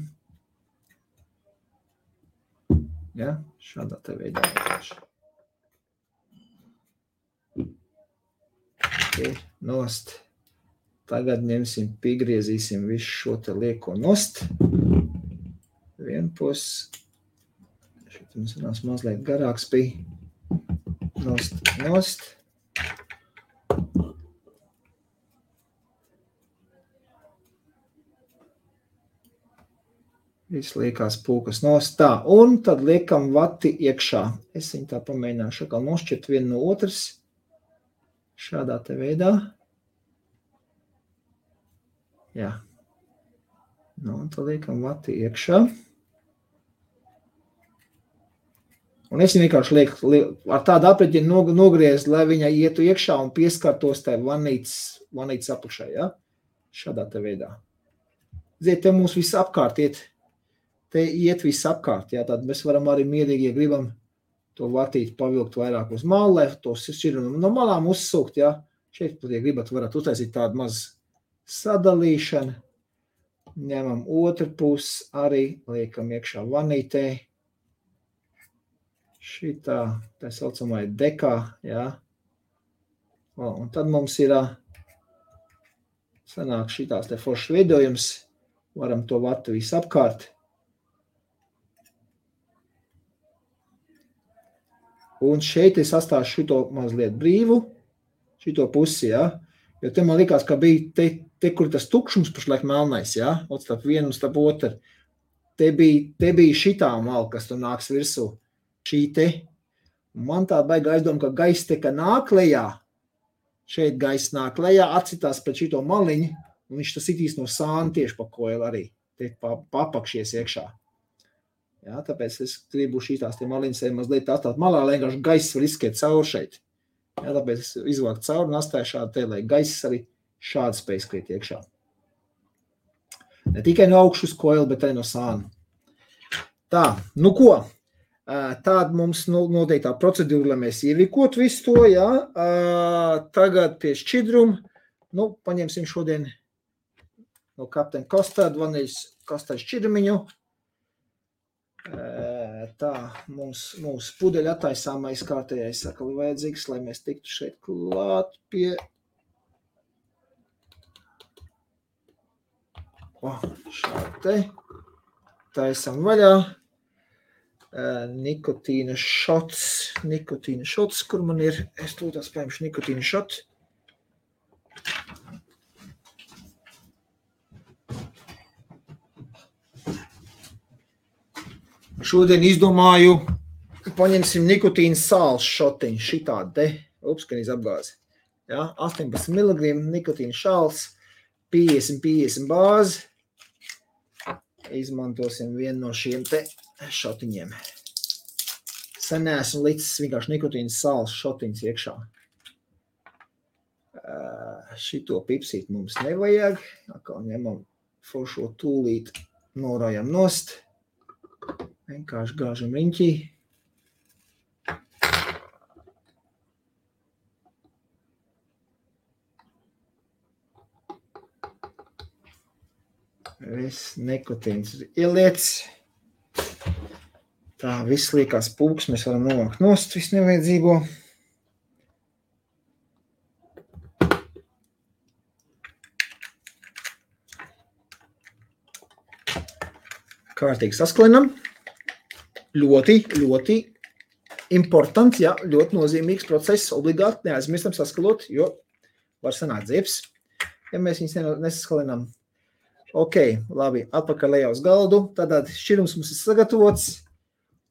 Ja, šādā te veidā. Ir nost. Tagad ņemsim, piegriezīsim visu šo te lieko nost. Vienpus. Šeit mums runās mazliet garāks bija. Nost. Viss liekās pūkas nost. Tā, un tad liekam vati iekšā. Es viņu tā pamēģināšu atkal nošķirt vienu no otras. Šādā te veidā. Jā. Nu, un tad liekam vati iekšā. Un es vienkārši lieku ar tādu apreķinu nogriezt, lai viņa ietu iekšā un pieskartos tai vanītes apakšai, ja? Šādā te veidā. Ziet, te mums viss apkārt iet. Te iet viss apkārt, ja? Tad mēs varam arī mierīgi, ja gribam to vatīti pavilkt vairāk uz malu, lai to šķirumu no malām uzsūkt, ja? Šeit, ja gribat, varat uztaisīt tādu mazu sadalīšanu. Ņemam otru pusi arī, liekam iekšā vanītē. Šitā, tā saucamā dekā, jā. Un tad mums ir sanāk šitās te foršs veidojums. Varam to vatu visu apkārt. Un šeit es atstāšu šito mazliet brīvu, šito pusi, jā. Jo te man likās, ka bija te kur tas tukšums pašlaik melnais, jā. Starp vienu un starp otru. Te bija šitā mala, kas tur nāks virsū. Šī te, man tā baigā aizdoma, ka gaiss te, ka nāk lejā, šeit gaiss nāk lejā, atcitās pret šito maliņu, un viņš tas itīs no sāna tieši pa koilu arī, te papakšies iekšā. Jā, tāpēc es gribu šitās te maliņas mazliet atstāt malā, lai vienkārši gaiss var izskiet cauri šeit. Jā, tāpēc es izvāku cauri un atstāju šādu te, lai gaiss arī šādi spēj skriet iekšā. Ne tikai no augšu uz koilu, bet arī no sāna. Tā, nu ko? Tāda mums noteiktā procedūra, lai mēs ierīkot visu to, jā. Tagad pie šķidruma, nu, paņemsim šodien no Captain Custard, vaniļas kastard šķidrumiņu. Tā, mums pudeļa attaisāmais kārtējais sakali vajadzīgs, lai mēs tiktu šeit klāt pie... Šādi te. Taisam vaļā. Nikotīna šots, kur man ir, es tūtās paimšu nikotīna šotu. Šodien izdomāju, paņemsim nikotīna sāls šotiņu, šitādi te, upskanīs apgāzi. Ja, 18 mg nikotīna šāls, 50 bāzi. Izmantosim vienu no šiem te šotiņiem. Sen neesmu licis vienkārši nikotīna sāls šotiņas iekšā. Šito pipsīt mums nevajag. Atkal ņemam foršo tūlīt, norājam nost. Vienkārši gāžam riņķī. Viss nikotīns ieliec. Tā, viss liekās pūks, mēs varam novākt nost, viss nevajadzīgo. Kārtīgi sasklinam. Ļoti importants, jā, ļoti nozīmīgs process, obligāti neaizmirstam saskalot, jo var sanākt ziepes, ja mēs viņus nesaskalinām. Ok, labi, atpakaļ lejā uz galdu, tātad šķirums mums ir sagatavots,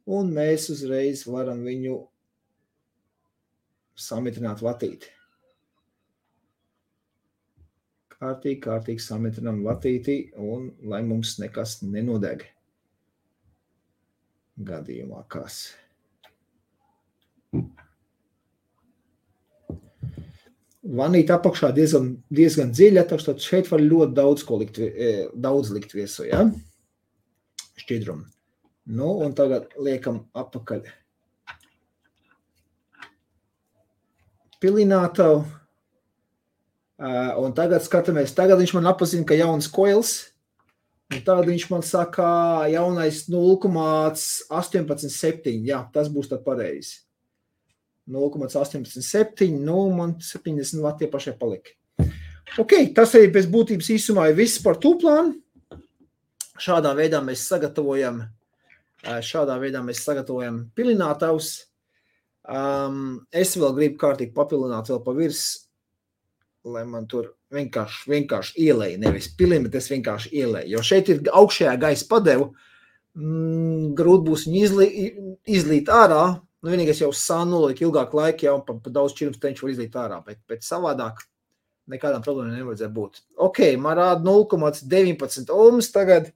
un mēs uzreiz varam viņu samitrināt vatīti. Kārtīgi samitrinām vatīti, un lai mums nekas nenodeg. Gadījumā kas. Vanīte apakšā diezgan dziļa, tad šeit var ļoti daudz likt viesу, ja? Šķidrumu. Nu, un tagad liekam apakaļ pilinātavu. Un tagad skatāmies, tagad viņš man apazina, ka jauns koils, un tagad viņš man saka jaunais 0,187, jā, tas būs tad pareizi. 0,187, nu, man 70 vati pašai palika. Ok, tas arī pēc būtības īsumā ir viss par tūplānu. Šādā veidā mēs sagatavojam pilinātavus. Es vēl gribu kārtīgi papilināt vēl pa virs, lai man tur vienkārši ielēja, nevis pilina, bet es vienkārši ielēju. Jo šeit ir augšējā gaisa padevu, grūti būs viņu izlīt ārā. Nu, vienīgais jau sānulīt ilgāku laiku, jau pa daudz šķirums teņš var izlīt ārā, bet savādāk nekādām problēmām nevajadzēja būt. Ok, man rāda 0,19 ohms tagad.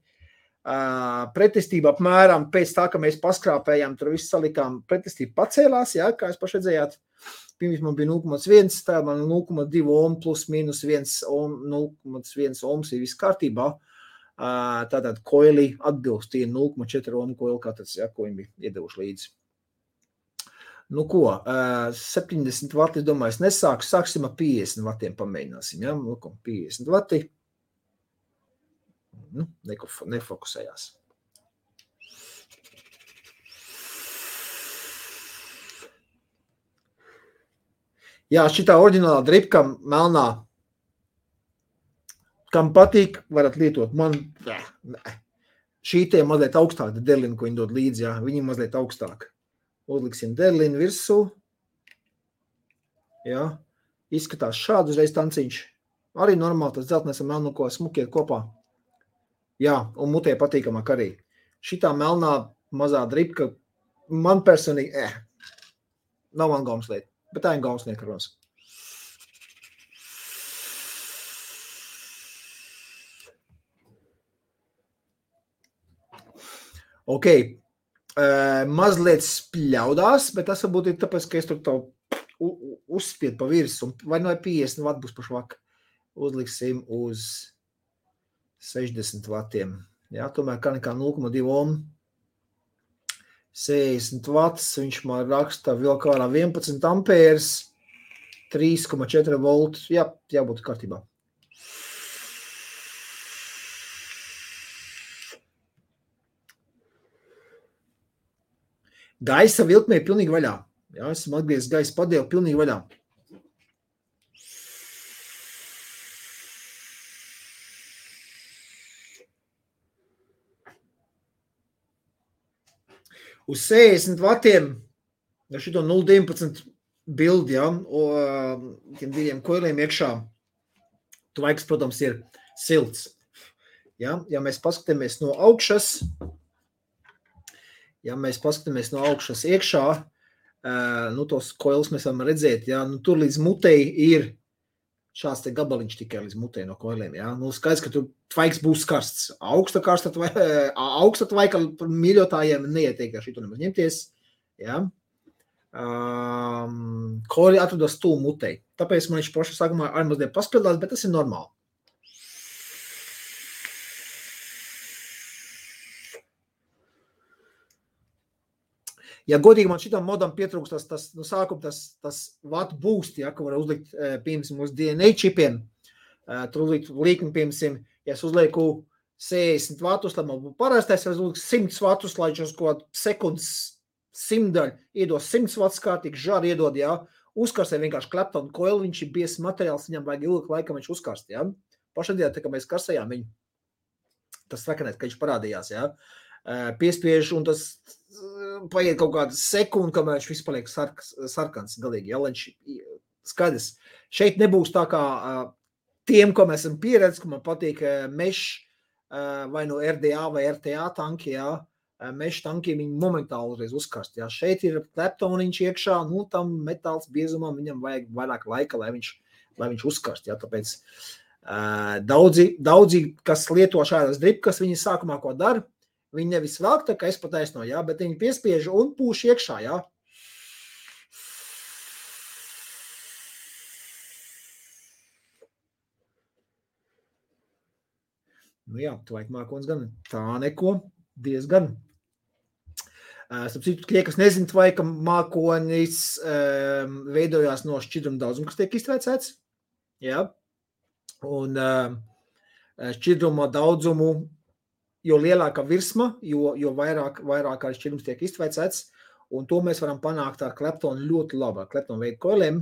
Pretestība apmēram pēc tā, ka mēs paskrāpējām, tur visu salikām, pretestība pacēlās, jā, kā jūs paši redzējāt. Pirms man bija 0,1, tā man 0,2 ohm plus mīnus 1 ohm, 0,1 ohms ir viss kārtībā. Tātad koili atbilst tie 0,4 ohm koili katrs, jā, ko viņi bija iedevuši līdzi. Nu ko, 70 vati, es domāju, es nesāku, sāksim ar 50 vatiem pamēģināsim, jā, 50 vati. Nu, nefokusējās. Jā, šitā oriģinālā dripka melnā, kam patīk, varat lietot. Man, šī tie mazliet augstāk, derlina, ko viņi dod līdzi, jā, viņi mazliet augstāk. Uzliksim derlinu virsū. Jā, izskatās šādu uzreiz tanciņš. Arī normāli tas dzeltnēs ar melnu, ko smukiet kopā. Jā, un mutē patīkamāk arī. Šitā melnā mazā dripka, man personīgi, nav man gaumslieta, bet tā ir gaumsnieka runas. Ok, mazliet spļaudās, bet tas varbūt ir tāpēc, ka es tur tā uzspied pa virsu, vai no 50 vat būs pašvak. Uzliksim uz 60 vatiem. Jā, tomēr kā nekā 0,2 ohm. 60 vats, viņš man raksta vēl kārā 11 ampērs, 3,4 volts. Jā, jābūt kārtībā. Gaisa vilkmē pilnīgi vaļā. Jā, esam atgriezis gaisa padēlu pilnīgi vaļā. Uz 60 vatiem, ja šito 0,19 bildi, ja, tiem diviem koiliem iekšā, tvaiks, protams, ir silts. Ja, ja mēs paskatāmies no augšas, iekšā, nu, tos koilus mēs varam redzēt, ja, nu, tur līdz mutei ir šāds te gabaliņš tikai līdz mutei no koiliem, ja. Nu, skaidrs, ka tur tvaiks būs karsts. Augsta tvaika mīļotājiem neieteik ar šito nemaz ņemties, ja. Koili atrodas tuvu mutei. Tāpēc man viņš paša sākumā arī mazliet paspildās, bet tas ir normāli. Ja godīgi man šitam modam pietrūks tas watt boost, ja, ko var uzlikt, piemēram, uz DNA čipiem, tur uzlikt līkni, piemēram, ja es uzlieku 60 vatus, lai man būtu parastais, ja es uzliku 100 vatus, lai viņš uz kaut sekundes 100 daļu iedos 100 vatus kārtīgi, žāri iedod, ja, uzkarstē vienkārši Clapton coil, viņš ir biezs materiāls, viņam vajag ilgi laikam viņš uzkarst, ja. Pašadienā, tā kā mēs karstējām viņu, tas sakanēt, ka viņš parādījās, ja. Piespiež, un tas paiet kaut kādu sekundi, kamēr viņš viss paliek sarkans galīgi, ja, lai viņš skaidrs. Šeit nebūs tā kā tiem, ko mēs esam pieredzis, ka man patīk mesh vai no RDA vai RTA tanki, ja, mesh tanki viņi momentāli uzreiz uzkarst, ja. Šeit ir Claptoniņš iekšā, nu, tam metāls biezumam viņam vajag vairāk laika, lai viņš uzkarst, ja, tāpēc daudzi, kas lieto šādas dripkas, viņi sākumā ko dara, viņi nevis velk, tā kā es pataisno, jā, bet viņi piespiež un pūš iekšā, jā. Nu jā, tvaik mākonis gan tā neko, diezgan. Starp citu, tie, kas nezin, tvaika mākonis veidojās no šķidruma daudzuma, kas tiek iztvēcēts, jā. Un šķidruma daudzumu, jo lielāka virsma, jo vairāk arī šķidrums tiek iztvēcēts, un to mēs varam panākt ar Claptonu ļoti labi, ar Claptonu veidu koiliem,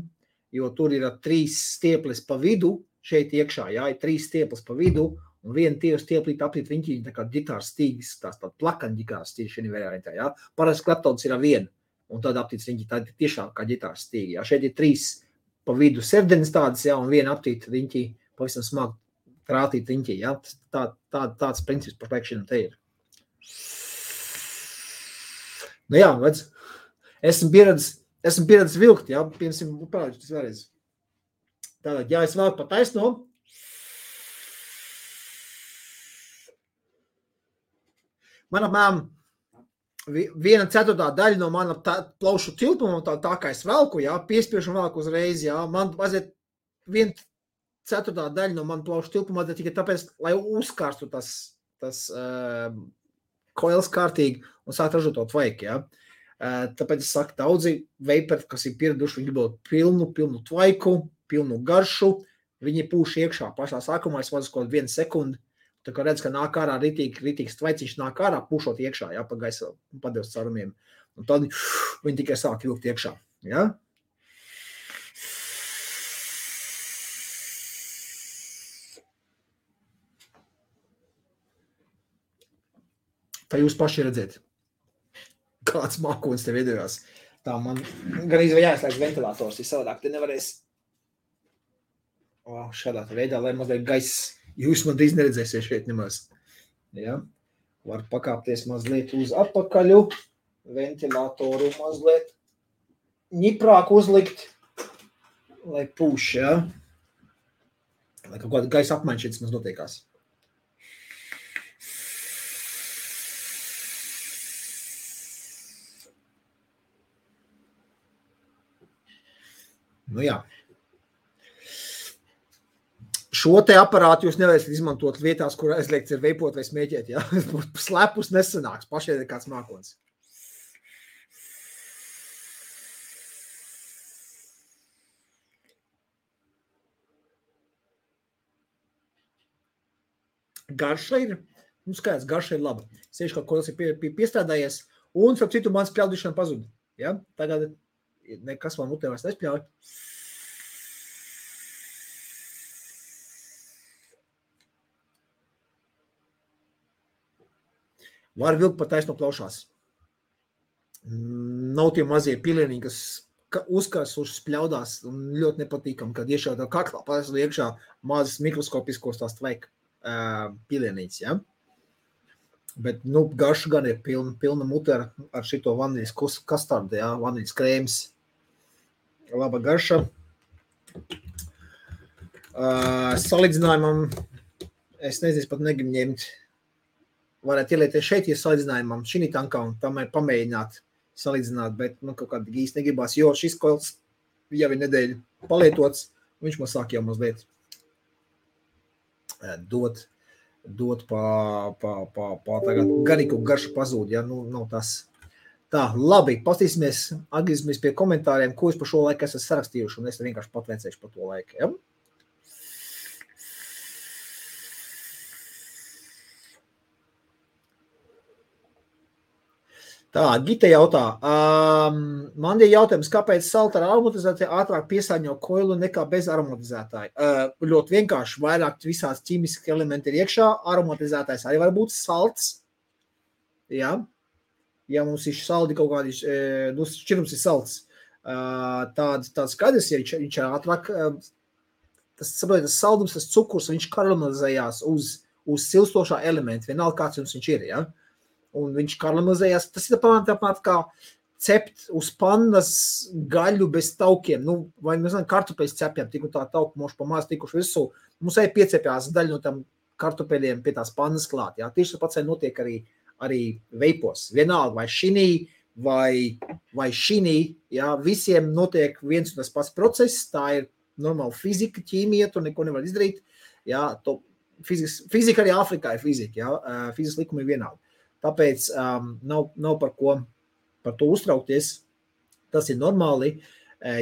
jo tur ir 3 stieples pa vidu, šeit iekšā, jā, ir 3 stieples pa vidu, un viena tieši stieplīta aptīt viņi tā kā ģitāras stīgas, tās tāda plakana ģitāras stīgas šeit variantā, jā. Parasti Claptons ir ar vienu, un tad aptīts viņi tā tiešām kā ģitāras stīga, jā. Šeit ir 3 pa vidu serdenes tādas, jā, un viena aptīt viņi pavisam smagi trātīt riņķī, ja? Tāds princips pašlaik šim te ir. Nu jā, redz, esmu pieredzis vilkt, ja? Piemēram, parādīšu tas vēlreiz. Tātad, ja es velku pa taisno, Man apmēram 1/4 daļa no mana plaušu tilpuma, tā kā es velku, jā, piespiešu un velku uzreiz, jā, man vajadzētu 1/4 daļa no mana plaušu tilpuma vajadzētu tikai tāpēc, lai uzkārstu tas koils kārtīgi un sāk ražot to tvaiku, jā. Tāpēc es saku, daudzi veiperi, kas ir pieraduši, viņi gribot pilnu tvaiku, pilnu garšu, viņi pūš iekšā pašā sākumā, es vadu kaut 1 sekundi, tā kā redz, ka nāk ārā ritīgs tvaiciņš nāk ārā, pušot iekšā, jā, pa gaisa padevs carumiem. Un tad viņi tikai sāk vilkt iekšā, jā. Tā jūs paši redzēt, kāds mākonis te veidojās. Tā man gan jāizslēdz ventilators, ja savādāk te nevarēs šādā veidā, lai mazliet gaiss. Jūs man drīz neredzēsiet šeit nemaz. Ja? Var pakāpties mazliet uz atpakaļu, ventilatoru mazliet ņiprāk uzlikt, lai pūš, ja? Lai kaut kāda gaisa apmaiņa šeit maz notiekās. Nu jā. Šo te aparātu jūs nevarēsiet izmantot vietās, kur aizliegts ir veipot vai smēķēt, ja? Slepus nesanāks, pašai ir kāds mākonis. Garša ir, skaidrs, garša ir laba. Sieši kaut ko tas ir piestrādājies, un, starp citu, mans pļaudišana pazud. Ja? Tagad nekas man mutē vairs nespļauj. Var vilkt pat taisno plaušās. Nav tie mazie pilieniņi, kas uzkarsuši spļaudās un ļoti nepatīkam, kad iešaudā kaklā paisno iekšā mazas mikroskopiskos tās tvaika pilienītes, ja? Bet, garša gan ir pilna mute ar šito vaniļas kastardu, ja? Vaniļas krēms. Laba garša. Salīdzinājumam, es nezinu, pat negribu ņemt. Varētu ielieties šeit, ja salīdzinājumam šī tankā un tam ir pamēģināt salīdzināt, bet kaut kādi īsti negribās, jo šis koils jau ir nedēļu palietots, viņš man sāk jau mazliet dot tagad garīgu garšu pazūd, ja, nav tas. Tā, labi, atgriezīsimies pie komentāriem, ko es par šo laiku esmu sarakstījuši, un es vienkārši patveicēšu par to laiku, ja? Tā, Gita jautā, man ir jautājums, kāpēc salta ar aromatizāciju ātrāk piesārņo koilu nekā bez aromatizētāja? Ļoti vienkārši, vairāk visās ķīmiski elementi ir iekšā, aromatizētājs arī var būt salts, jā, ja mums ir saldi kaut kādi, šķirums ir salts, tāds skaidrs, ja viņš ir ātrāk, tas saldums, tas cukurs, viņš karamelizējās uz silstošā elementa, vienalga kāds jums viņš ir, jā. Un viņš karamelizējās, tas ir tāpat kā cept uz pannas gaļu bez taukiem, vai mēs zinām, kartupeļus cepjam, tik un tā tauku moši pa maz tikuši visu, mums arī piecepjās daļu no tam kartupeļiem pie tās pannas klāt, jā, tieši tāpats notiek arī veipos, vienalga, vai šinī, vai šinī, jā, visiem notiek viens un tas pats process, tā ir normāla fizika, ķīmija, tu neko nevar izdarīt, jā, fizika arī Āfrikā ir fizika, jā, fizikas likumi ir vienalga. Tāpēc nav par to uztraukties, tas ir normāli.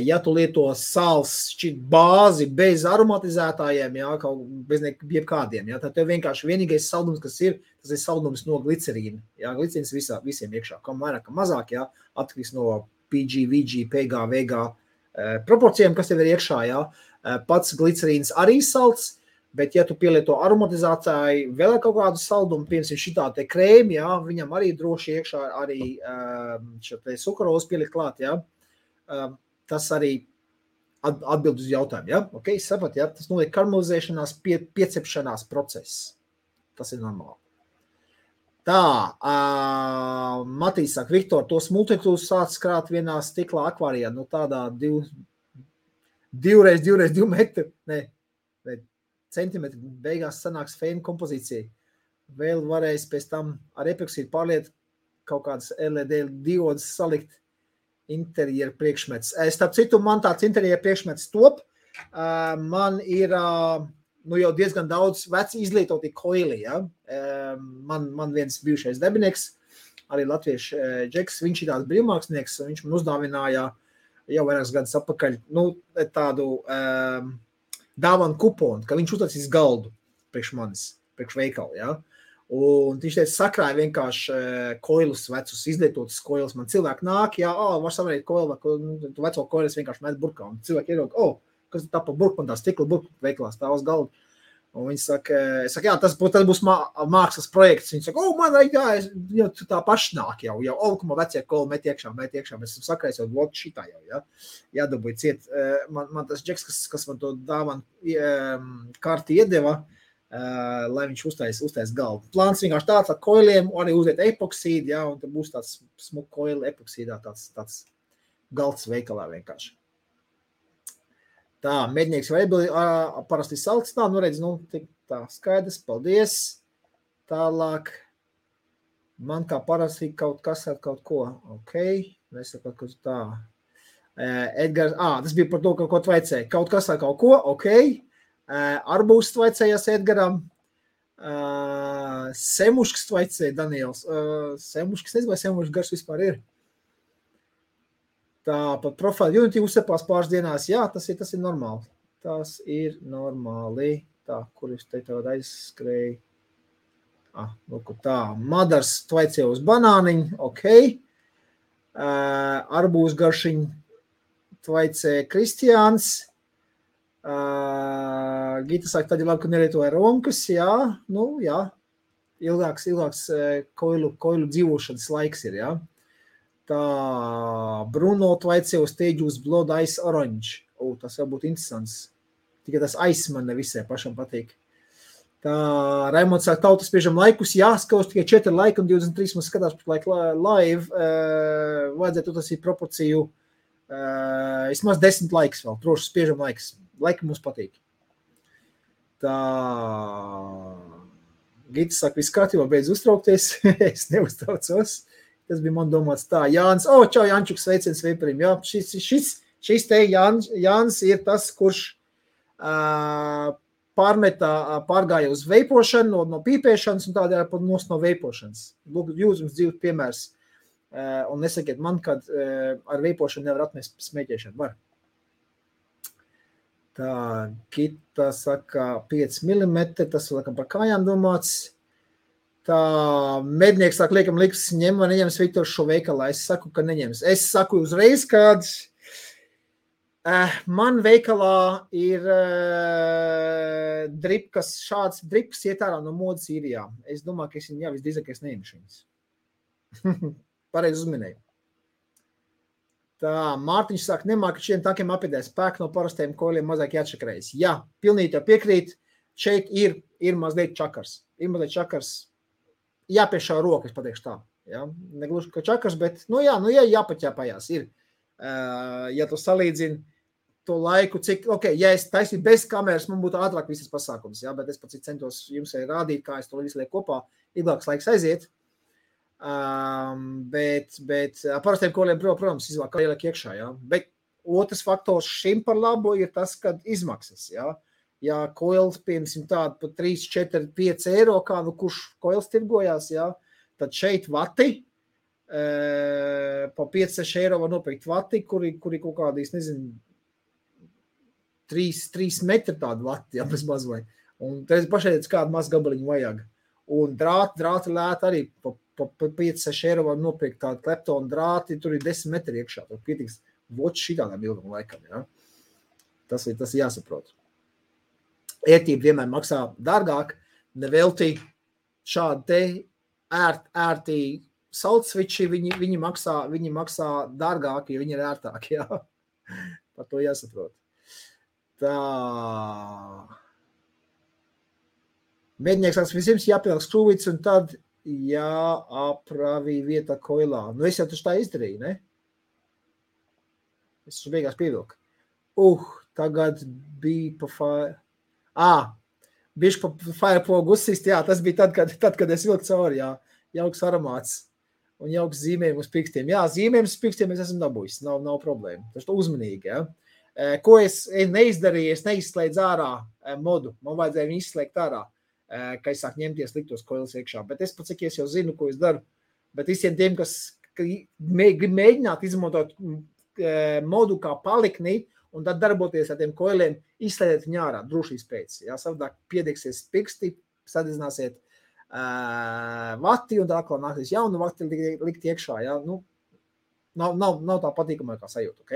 Ja tu lieto sāls šķiet bāzi bez aromatizētājiem, jā, bez jebkādiem, jā, tad tev vienkārši vienīgais saldums, kas ir, tas ir saldums no glicerīna. Jā, glicerīns visiem iekšā, kam vairāk, kam mazāk, jā, atkarīgs no PG, VG, PG, VG proporcijām, kas tev ir iekšā, jā. Pats glicerīns arī salds, bet, ja tu pielieto aromatizāciju, vēl kaut kādu saldumu, piemēram, šitā te krēmi, jā, viņam arī droši iekšā arī šo te sukarozu pielikt klāt, jā, tas arī atbild uz jautājumu, jā, ok, sapat, jā, tas notiek karamelizēšanās, piecepšanās process, tas ir normāli. Tā, Matīs saka, Viktor, tos multitūs sāc krāt vienā stiklā akvārijā, tādā 2 x 2 metri, ne, centimetri beigās sanāks fēna kompozīcija. Vēl varēs pēc tam ar epoksīdu pārliet kaut kādas LED diodas salikt interjeru priekšmets. Starp citu, man tāds interjeru priekšmets top. Man ir jau diezgan daudz veci izlietoti koili. Ja? Man viens bijušais darbinieks, arī latviešu Džeks, viņš ir tāds brīvmākslinieks, viņš man uzdāvināja jau vairākus gadus atpakaļ tādu dāvanu kuponu, ka viņš uztaisīs galdu priekš manis, priekš veikalu. Ja? Un viņš teica, sakrāja vienkārši koilus vecus, izlietotus koilus. Man cilvēki nāk, var savarēt koilu, tu veco koilus vienkārši met burkā. Un cilvēki ierauga, kas tā pa burku, man tā stikla burku veikalā stāv uz galda. Un viņi saka, tas būs mākslas projekts. Viņi saka, man jau tā paši nāk jau, man vecie koili met iekšā. Mēs esam sakrājis jau vlog šitā jau, ja? Jādabūj ciet. Man tas Džeks, kas man to dāvanu karti iedeva, lai viņš uztais galdu. Plāns vienkārši tāds ar koiliem, arī uzliet epoksīdu, ja, un tad būs tāds smuk koili epoksīdā, tāds galds veikalā vienkārši. Tā, mednieks vai parasti salts, redz, tā skaidrs, paldies. Tālāk, man kā parasti kaut kas ar kaut ko, mēs kaut ko tā. Edgars, tas bija par to, ko tvaicēja, kaut kas ar kaut ko, Arbūs tvaicējās Edgaram, Semušks tvaicēja Daniels, Semušks, nezinu, vai Semušks gars vispār ir. Tā pat profili Unity uzsepās pāris dienās, tas ir normāli. Tas ir normāli. Tā, kur es te tev aizskrēju. Tā, Madars tvaicēja uz banāniņu, Arbūs garšiņu tvaicēja Kristiāns. Gita saka, tad ir labi, ka nelietoja romkas, ilgāks koilu dzīvošanas laiks ir, Tā, Bruno tvaicēja uz Teģus Blood Ice Orange. Tas jau būtu interesants. Tikai tas ice man nevisai pašam patīk. Tā, Raimonds saka, tautas spiežam laikus, skaus tikai 4 laika un 23 mums skatās par laiku live. Vajadzētu tas ir proporciju, vismaz 10 laiks vēl, droši spiežam laiks. Laika mums patīk. Tā, Gita saka, viss kārtībā, beidz uztraukties. Es neuztraucos. Tas bija man domāts tā. Jānis, čau, Jančuks, sveiciens Veiparim. Jā, šis te Jānis ir tas, kurš pārgāja uz veipošanu, no pīpēšanas un tādēļ pat no veipošanas. Lūk, jūs jums dzīvot piemērs. Un nesakiet man, kad ar veipošanu nevar atmest smēķēšanu. Var. Tā, Gita saka 5 mm, tas laikam par kājām domāts. Tā, mednieks saka, liekam, liks ņem vai neņems Viktors šo veikalā. Es saku, ka neņems. Es saku uzreiz, kad man veikalā ir dripkas, šāds dripkas iet ārā no modas īrijā. Es domāju, ka es viņu visdrīzāk neņemšu viņas. Pareizi uzminēju. Tā, Mārtiņš saka, nemāk, ka šiem tankiem apidēs spēku no parastajiem koļiem mazāk jāatšakarējas. Jā, pilnīgi jau piekrīt. Šeit ir mazliet čakars. Jāpiešā roka, es pateikšu tā. Ja? Negluži, ka čakars, bet, jāpaķēpājās ir. Ja tu salīdzini to laiku, cik, ja es taisīju bez kameras, man būtu ātrāk visas pasākums, bet es pats centos jums rādīt, kā es to visu lieku kopā, ilgāks laiks aiziet. Bet parastiem koliem, protams, izvēl kā ieliek iekšā, Bet otrs faktors šim par labu ir tas, kad izmaksas, Ja koils, piemēram, tādu pa 3, 4, 5 eiro, kā kurš koils tirgojās, tad šeit vati, pa 5, 6 eiro var nopirkt vati, kuri kaut kādīs, 3 metri tādu vati, bez mazvai. Un tad pašaiet kādu maz gabaliņu vajag. Un drāti lēti arī, pa 5, 6 eiro var nopirkt tādu kleptonu drāti, tur ir 10 metri iekšā, tur pietiks voči šitādām ilgam laikam, Tas ir jāsaprot. Ērtība vienmēr maksā dārgāk, nevelti šādi te ērtī saltsviči, viņi maksā dārgāk, jo viņi ir ērtāki, Par to jāsaprot. Tā. Mednieks vispirms jāpielāk skrūvīts un tad jāapravī vieta koilā. Es jau taču tā izdarīju, ne? Es beigās pievilku. Tagad bija pa bišķi pa firepogu uzsist, jā, tas bija tad, kad es vilku cauri, jā, jauks aromāts un jauks zīmējumi uz pikstiem. Jā, zīmējumi uz pikstiem es esmu dabūjis, nav problēma. Tas uzmanīgi, jā. Ko es neizdarīju, es neizslēdzu ārā modu, man vajadzēja viņu izslēgt ārā, ka es sāku ņemties liktos koilas iekšā, bet es pats, cik es jau zinu, ko es daru, bet visiem tiem, kas grib mēģināt izmantot modu kā palikni, un tad darboties ar tiem koiliem, izslēdiet viņu ārā, drošības pēc. Jā, savādāk piedegsies piksti, sadedzināsiet vati, un tā atkal nāksies jaunu vati likt iekšā. Jā, nu, nav tā patīkamākā sajūta, ok?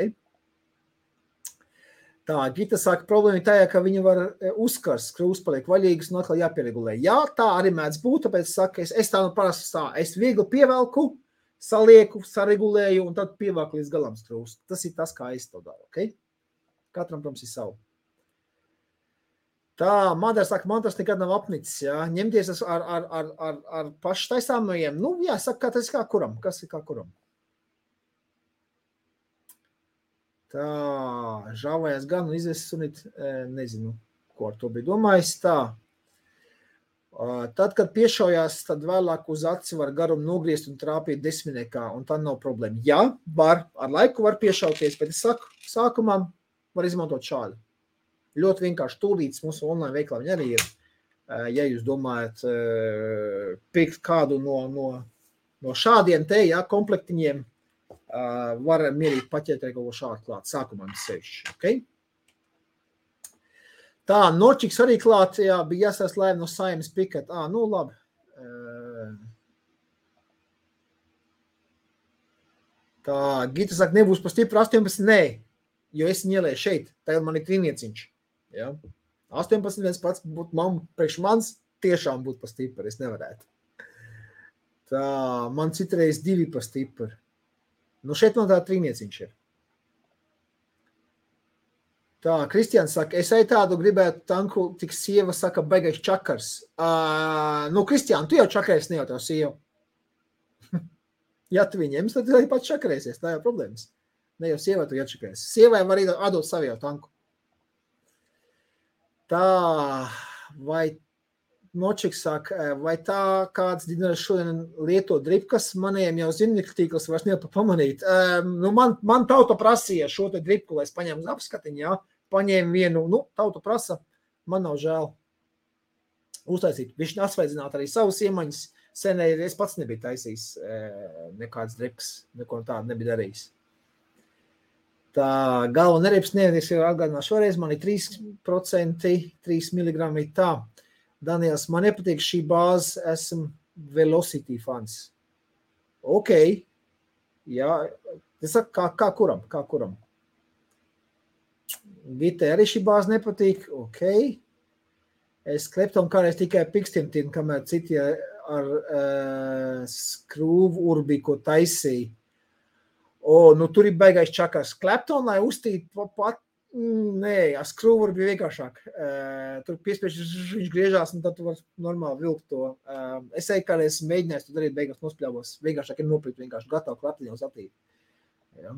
Tā, Gita saka, problēma ir tajā, ka viņi var uzkars, skrūvs paliek vaļīgas un atkal jāpieregulē. Jā, tā arī mēdz būt, tāpēc saka, es tā nu parasti tā, es viegli pievelku, salieku, saregulēju un tad pievelku līdz galam skrūvs. Tas ir tas, kā es to daru, ok? Katram, protams, ir savu. Tā, Madara saka, man tas nekad nav apnicis, jā. Ņemties ar pašu taisāmajiem. Nu, jā, saka, tas ir kā kuram. Kas ir kā kuram? Tā, žāvājās gan un izvest sunīt, nezinu, ko ar to bija domājis. Tā. Tad, kad piešaujās, tad vēlāk uz aci var garumu nogriezt un trāpīt desmitniekā, un tā nav problēma. Jā, var, ar laiku var piešauties, bet es saku, sākumā var izmantot šādi. Ļoti vienkārši tūlītis mūsu online veiklā viņi arī ir. Ja jūs domājat pirkt kādu no šādiem te, jā, komplektiņiem, var mierīgi paķēt arī kaut ko šādu klāt. Sākumā mums sevišķi, ok? Tā, Norčiks arī klāt, jā, bija jāsās laiva no Saimas Pikat. Nu labi. Tā, Gita saka, nebūs pa stipru 18, nē. Jo es viņu ielēju šeit, tagad man ir trīnieciņš. Ja? 18 viens pats būtu priekš mans, tiešām būtu pa stipri, es nevarētu. Tā, man citreiz 2 pa stipri. Nu šeit man tā trīnieciņš ir. Tā, Kristians saka, es arī tādu gribētu tanku, tik sieva saka, baigais čakars. Nu, Kristian, tu jau čakarēsi, ne jau tev sieva. Ja tu viņiem, tad arī pats čakarēsies, tā jau problēmas. Ne jau sievai tu iečakēs. Sievai var atdot savu jau tanku. Tā, vai Nočiks saka, vai tā kāds dinars šodien lieto dripkas, maniem jau zinnikļu tīkls vairs nevar pamanīt. Nu, man tauta prasīja šo te dripku, lai es paņēmu uz apskatiņu, jā. Paņēmu vienu, nu, tauta prasa, man nav žēl uztaisīt. Viņš asveidzināt arī savus iemaņas. Senē es pats nebiju taisījis nekāds dripkas, neko tādu nebija darījis. Tā galva neriepas nevienīgs jau atgādināšu šoreiz, man ir 3%, 3 mg tā. Daniels, man nepatīk šī bāze, esmu Velocity fans. Ok, jā, es saku, kā kuram. Gitai arī šī bāze nepatīk, ok. Es kleptam kādreiz tikai pikstiem tiem, kamēr citi ar skrūvu urbi, ko taisīja. Nu tur ir baigais čakars. Klepton, lai uztīt pat, nē, ar skrūvu bija vienkāršāk. Tur piespieši viņš griežās, un tad tu var normāli vilkt to. Es eju kādreiz mēģinājis, tu darīt beigās nospļāvos. Vienkāršāk ir nopirkt vienkārši gatavu kleptiņu uz atīt. Ja.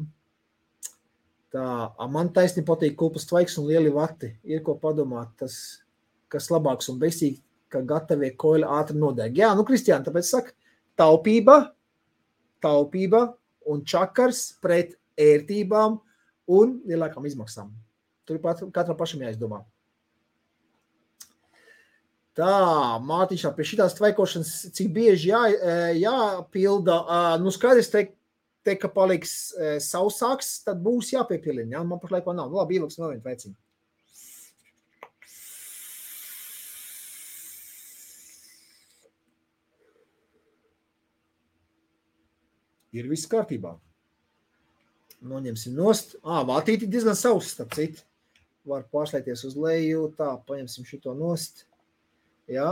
Tā, man taisni patīk kulpas tvaiks un lieli vati. Ir ko padomāt, tas, kas labāks un beigstīgi, ka gatavie koļi ātri nodeg. Jā, nu, Kristiāna, tāpēc saka, taupība un čakars pret ērtībām un lielākām izmaksām. Tur katram pašam jāizdomā. Tā, Mārtiņš, pie šitās tvaikošanas, cik bieži jāpilda, nu skaidrs te, ka paliks sausāks, tad būs jāpiepilina, jā, man pašlaik vēl nav. Nu, labi, ieliks vēl vienu tvaiciņu. Ir viss kārtībā. Noņemsim nost. Vātīti diezgan savs, starp citu. Var pārslēties uz leju. Tā, paņemsim šito nost. Jā.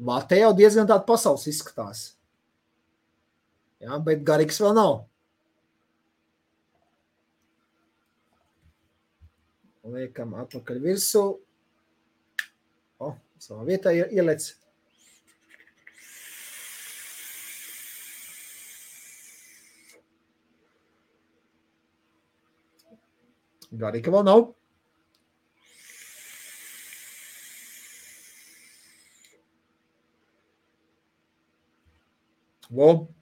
Vāte jau diezgan tāda pasaules izskatās. Jā, bet garīgs vēl nav. Liekam atpakaļ virsū. Savā vietā ielec. Garīga vēl nav.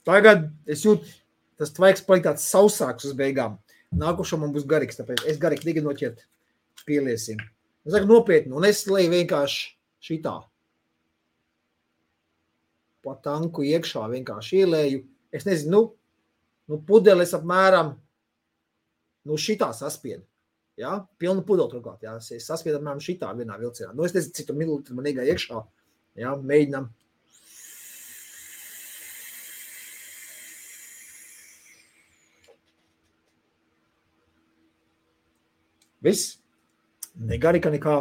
Tagad es jūtu, tas tvaiks paliek tāds sausāks uz beigām. Nākošo man būs garīgs, tāpēc es garīgi tikai noķert pieliesim. Es saku nopietni, un es leju vienkārši šitā. Pa tanku iekšā vienkārši ielēju. Es nezinu, pudeles apmēram, šitā saspiedu. Ja? Pilnu pudeli turklāt. Ja? Es saspiedu apmēram šitā vienā vilcienā. Es nezinu, cik mililitri man iegāja iekšā. Ja? Mēģinām. Viss? Negarika nekā.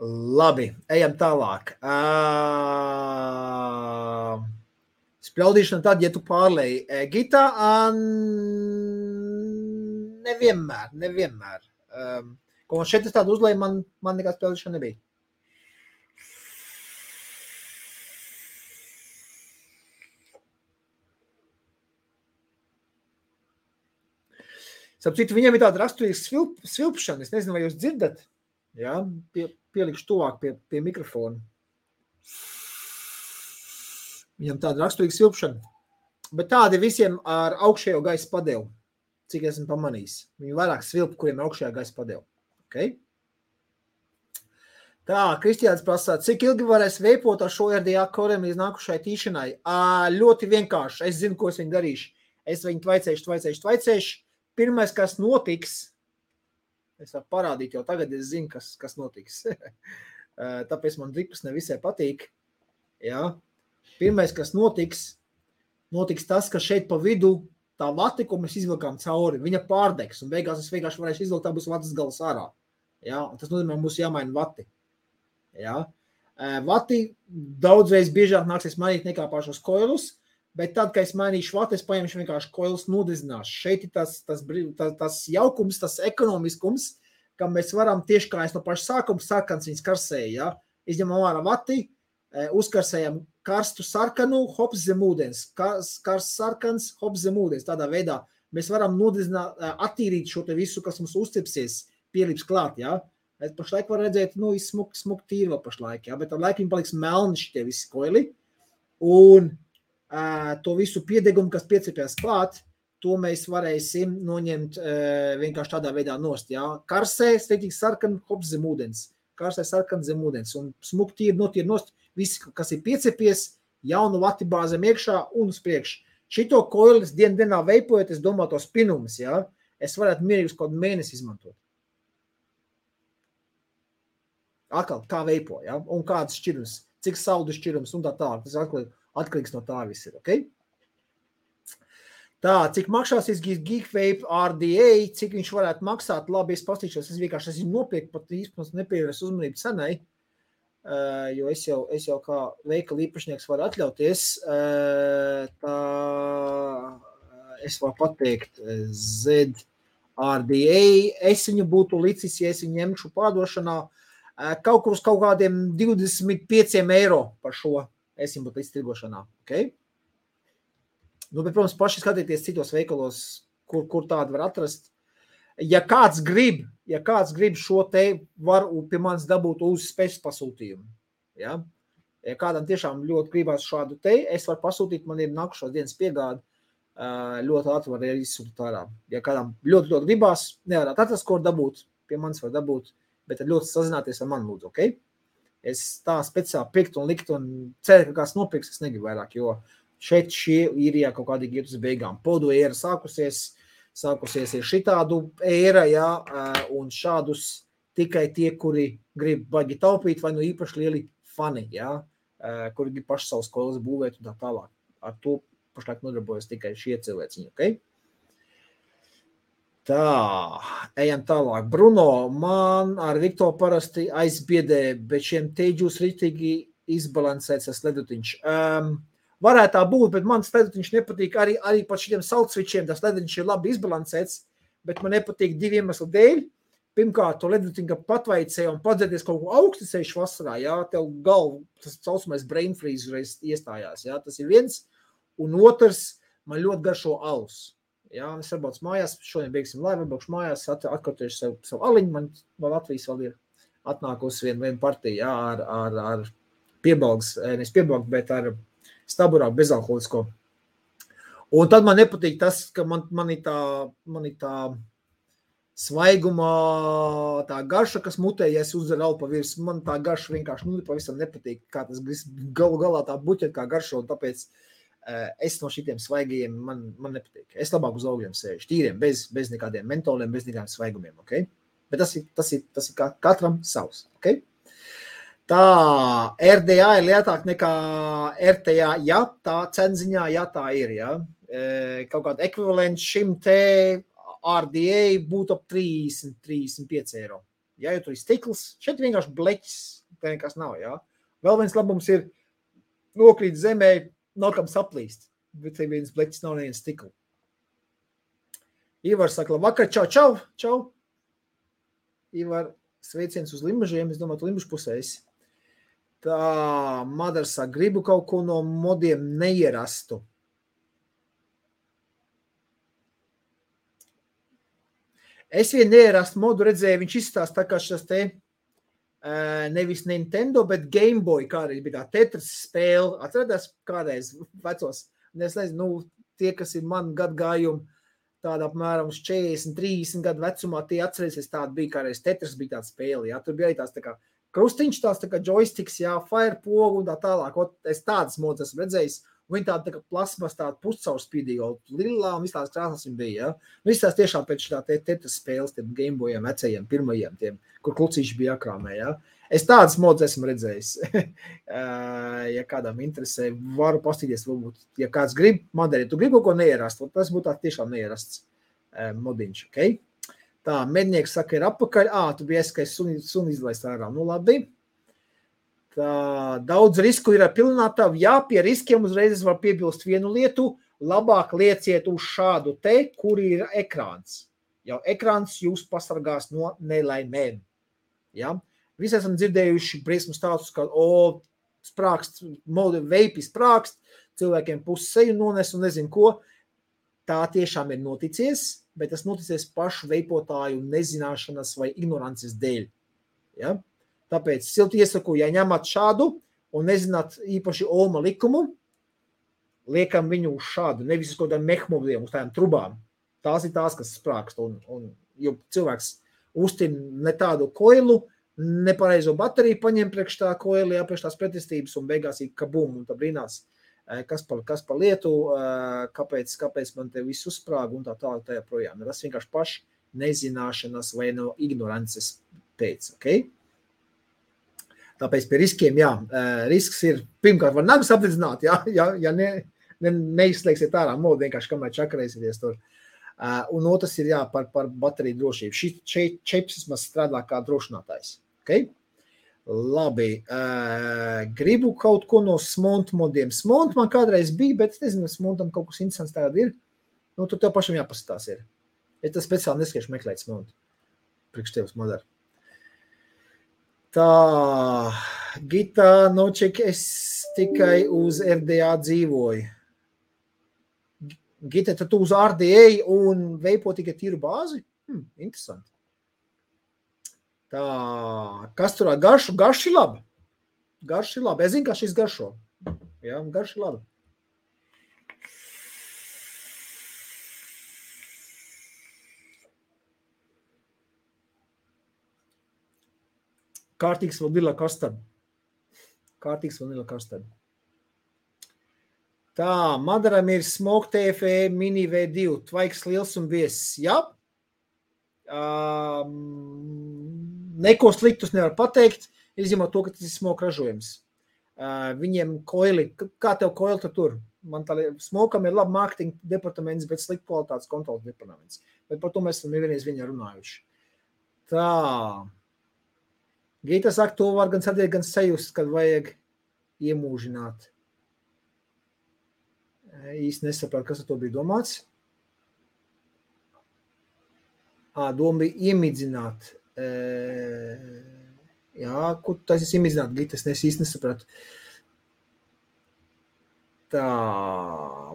Labi, ejam tālāk. Spļaudīšana tad, ja tu pārlēji Gitā, nevienmēr. Ko man šeit es tādu uzlēju, man nekā spļaudīšana nebija. Sapcitu, viņiem ir tāda raksturīga svilpšana. Es nezinu, vai jūs dzirdat. Ja? Pielikšu tuvāk pie mikrofona. Viņam tāda raksturīga svilpšana. Bet tādi visiem ar augšējo gaisa padevu, cik esmu pamanījis. Viņi vairāk svilp, kuriem ir augšējā gaisa padevu. Okay? Tā, Kristiāns prasā, cik ilgi varēs veipot ar šo RDA koriem līdz nākušai tīšanai? Ļoti vienkārši. Es zinu, ko es viņu darīšu. Es viņu tvaicēšu. Pirmais, kas notiks, es varu parādīt jau tagad, es zinu, kas notiks. Tāpēc man dripas nevisai patīk. Ja? Pirmais, kas notiks tas, ka šeit pa vidu tā vati, ko mēs izvilkām cauri, viņa pārdegs, un beigās es vienkārši varēšu izvilkt, tā būs vatas galas ārā. Ja? Un tas nozīmē, mums jāmaina vati. Ja? Vati daudzreiz biežāk nāksies mainīt nekā pašos koilus, bet tad, kad es mainīšu vati, es paņemšu vienkārši koilus nodezināšu. Šeit ir tas jaukums, tas ekonomiskums, ka mēs varam tieši kā es no paša sākuma sarkans viņas karsēja. Ja? Izņemam ārā vati, uzkarsējam karstu sarkanu, hops zem ūdens. Karsts sarkans, hops zem ūdens. Tādā veidā mēs varam nodezināt, attīrīt šo te visu, kas mums uzcipsies, pielips klāt. Ja? Es pašlaik var redzēt, smuk tīri vēl pašlaik, ja? Bet ar laiku viņi paliks melni šitie visi koili. Un to visu piedegumu, kas piecipjās klāt, to mēs varēsim noņemt vienkārši tādā veidā nost. Ja? Karsē, steitīgi sarkan, hops zem ūdens. Karsē sarkan zem ūdens. Un smuk tīri notīri nost, visi, kas ir piecipies, jaunu vati bāzem iekšā un uz priekšu. Šito koilis dienā veipojot, es domāju tos pinumus, ja? Es varētu mierīgus kaut mēnesi izmantot. Atkal, kā veipo, ja? Un kāds šķirums, cik saldu šķirums un tā tālāk. Tas atkarīgs no tā viss ir, ok? Tā, cik maksāsies Geekvape RDA, cik viņš varētu maksāt, labi, es pastīšos, es vienkārši esmu nopirkt, pat īstenībā nepievērs uzmanību cenai, jo es jau kā veikala īpašnieks varu atļauties, tā es varu pateikt ZRDA, es viņu būtu licis, ja es viņu ņemšu pārdošanā, kaut kur uz kaut kādiem 25 eiro par šo. Es viņu būtu līdz tirgošanā, ok? Bet, protams, paši skatieties citos veikalos, kur tādu var atrast. Ja kāds grib šo te, var pie manis dabūt uz spēcas pasūtījumu. Ja? Ja kādam tiešām ļoti gribās šādu te, es varu pasūtīt, man ir nākušos dienas piegādi, ļoti ātri var izsūtīt ārā. Ja kādam ļoti gribās, nevarētu atrast, ko dabūt, pie manis var dabūt, bet ļoti sazināties ar mani lūdzu, ok? Es tā speciāli pirkt un likt un ceru, ka kāds nopirks, es negribu vairāk, jo šeit šie īrijā kaut kādīgi iet uz beigām. Podu ēra sākusies ir šitādu ēra, ja, un šādus tikai tie, kuri grib baigi taupīt, vai nu īpaši lieli fani, ja, kuri grib paši savus kolas būvēt un tā tālāk. Ar to pašlaik nodarbojas tikai šie cilvēciņi, ok? Tā, ejam tālāk. Bruno, man ar Viktoru parasti aizbiedē, bet šiem teģūs ritīgi izbalansēts tas ledutiņš. Varētu tā būt, bet man ledutiņš nepatīk arī pat šiem saltsvičiem, tas ledutiņš ir labi izbalansēts, bet man nepatīk divi iemesli dēļ. Pirmkārt, to ledutiņu patvaicē un padzēties kaut ko augstisējuši vasarā, jā, tev galvu, tas saucamais brain freeze reiz iestājās, jā, tas ir viens. Un otrs, man ļoti garšo alus. Jā, es varbūt mājās, šodien beigsim laivu, varbūt mājās, atkartojuši savu aliņu, man no Latvijas vēl ir atnākusi viena partija, jā, ar piebalgs, nevis piebalgs, bet ar staburāk bezalkoholisko. Un tad man nepatīk tas, ka man ir tā svaigumā, tā garša, kas mutē, ja es uzderu alpa virs, man tā garša vienkārši pavisam nepatīk, kā tas galu galā tā buķet kā garšo, un tāpēc es no šitiem svaigajiem man nepatīk. Es labāk uz augļiem sēžu, tīriem, bez nekādiem mentoliem, bez nekādiem svaigumiem, ok? Bet tas ir katram savs, ok? Tā RDA ir lietāk nekā RTA, ja tā cenziņā, ja tā ir, ja. Kaut kāda ekvivalents šim te RDA būtu ap 30-35 eiro. Ja, jo tur ir stikls, šeit vienkārši bleķis, tā nekas nav, ja. Vēl viens labums ir nokrīt zemē, nav kam saplīst, bet te viens bleķis nav neviens stikla. Ivar saka, labvakar, čau. Ivar, sveiciens uz Limbažiem, es domāju, tu Limbažu pusēs. Tā, Madara saka, gribu kaut ko no modiem neierastu. Es vien neierastu modu redzēju, viņš izstāst tā kā šis te nevis Nintendo, bet Game Boy kādreiz bija tā Tetris spēle. Atcerēties kādreiz vecos, es nezinu, tie, kas ir man gadgājumi, tāda apmēram uz 40-30 gadu vecumā, tie atcerēsies, tāda bija kādreiz Tetris, bija tāda spēle, jā, tur bija arī tās tā kā krustiņš, tās tā kā joysticks, jā, fire pogu un tā tālāk, es tādas modas esmu redzējis, un viņi tāda tā kā plasmas, tāda puscaurspīdīga, lilā un visās krāsās viņi bija, jā. Visās tiešām pēc tā Tetris spēles, tiem Gameboyiem, vecajiem, pirmajiem, tiem, kur klucīši bija jākrāmē, jā. Es tādas modas esmu redzējis. Ja kādam interesē, varu pastīties, varbūt, ja kāds grib, Madara, ja tu gribi kaut ko neierast, tas būtu tā tiešām neierasts modiņš, ok? Tā, mednieks saka, ir apakaļ. Tu biji eskais suni izlaist ārā. Nu, labi. Tā, daudz risku ir ar pilinātavu. Jā, pie riskiem uzreiz var piebilst vienu lietu. Labāk lieciet uz šādu te, kur ir ekrāns. Jau ekrāns jūs pasargās no nelaimēm. Ja? Visi esam dzirdējuši briesmu stāstus, ka sprākst, veipi sprākst, cilvēkiem pusi seju nones un nezinu ko. Tā tiešām ir noticies, bet tas noticies pašu veipotāju nezināšanas vai ignorances dēļ. Ja? Tāpēc silti iesaku, ja ņemat šādu un nezināt īpaši Olma likumu, liekam viņu uz šādu, nevis uz kaut kādām mehmobliem, uz tādām trubām. Tās ir tās, kas sprākst. Jo cilvēks uztin ne tādu koilu, nepareizo bateriju paņem priekš tā koili, priekš tās pretestības un beigās ir kabum un tā brīnās. Kas par lietu, kāpēc man te viss uzsprāga un tā tālāk tajā projām. Tas vienkārši paši nezināšanas vai no ignorances pēc, ok? Tāpēc pie riskiem, jā, risks ir, pirmkārt, var nagas apdedzināt, ja neizslēgsiet ārā modu, vienkārši kamēr čakarēsieties tur. Un otrs ir, jā, par bateriju drošību. Šeit čips vismaz strādā kā drošinātājs, ok? Labi, gribu kaut ko no Smont modiem. Smont man kādreiz bija, bet es nezinu, Smontam kaut kas interesants tagad ir. Nu, tur tev pašam jāpasatās ir. Es tas speciāli neskiešu meklēt Smont. Priekš tevs Madara. Tā, Gita Noček, es tikai uz RDA dzīvoju. Gita, tad tu uz RDA un veipo tikai tīru bāzi? Interesanti. Tā, kas turā garšu? Garš ir labi. Garš ir labi. Es zinu, kā šis garšo. Jā, garš ir labi. Kārtīgs vanila kastard. Tā, Madaram ir Smoke TFE Mini V2. Tvaiks liels un viesis. Jā. Neko sliktus nevar pateikt, izņemot to, ka tas ir Smoke ražojums. Viņiem koili, kā tev koili tur? Man tā Smokam ir labi mārketinga departaments, bet slikta kvalitātes kontrolas departaments. Bet par to mēs esam nevienreiz viņā runājuši. Tā. Gita saka, to var gan sadiet, gan sajust, kad vajag iemūžināt. Īsti nesaprāt, kas ar to bija domāts. Doma bija iemidzināt. Jā, ko tas ir iemidzināt, Gita, es īsti nesapratu. Tā,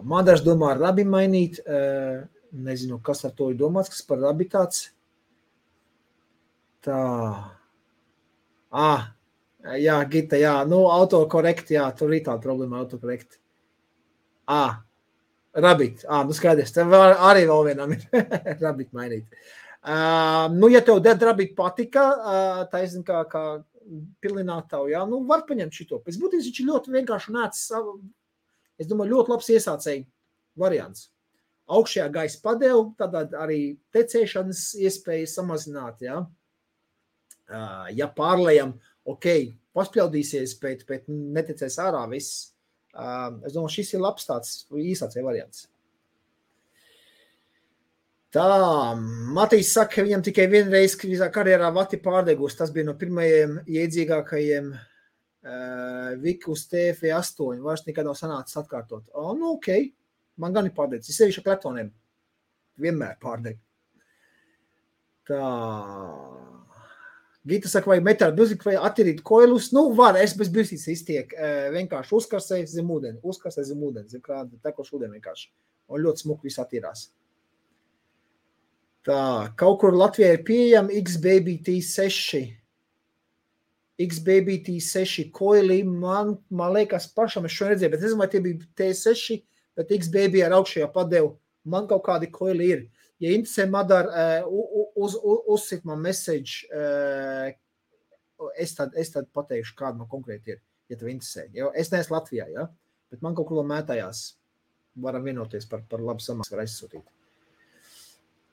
Madars domā rabi mainīt. Nezinu, kas ar to ir domāts, kas par rabi tāds. Tā. Jā, Gita, jā, nu, autokorekt, jā, tur ir tāda problēma autokorekt. Rabbit. Nu skaidrs. Tev arī vēl vienam ir Rabbit mainīt. Ja tev Dead Rabbit patika, taisn kā pilinātavu, var paņemt šito. Pēc būtības viņš ir ļoti vienkārši nācis, es domāju, ļoti labs iesācēji variants. Augšējā gaisa padevu, tad arī tecēšanas iespējas samazināt, Ja pārlējam, paspļaudīsies, bet netecēs ārā viss. Es domāju, šis ir labs tāds īsācēji variants. Tā, Matīs saka, ka viņam tikai vienreiz visā karjerā vati pārdegus. Tas bija no pirmajiem iedzīgākajiem Vikus TF8. Vairs nekad nav sanācis atkārtot. Man gan ir pārdegus. Es sevišķi ar kleptoniem. Vienmēr pārdegu. Tā. Gita saka, vai metāli bilzīgi, vai attīrīt koilus. Var, es bez bilzītes iztiek. Vienkārši uzkarsēju zem ūdeni. Zem krāda, tekošu ūdeni vienkārši. Un ļoti smuki viss attīrās. Tā, kaut kur Latvijā ir pieejama X-Baby T6. X-Baby T6 koili, man liekas pašam, es šo redzēju, bet nezinu, vai tie bija T6, bet X-Baby ar augšējā padevu. Man kaut kādi koili ir. Ja interesē, Madar, uzsit man message, es tad pateikšu, kāda man konkrēti ir, ja tev interesē. Es neesmu Latvijā, bet man kaut kur mētājās. Varam vienoties par labu samaks, var aizsūtīt.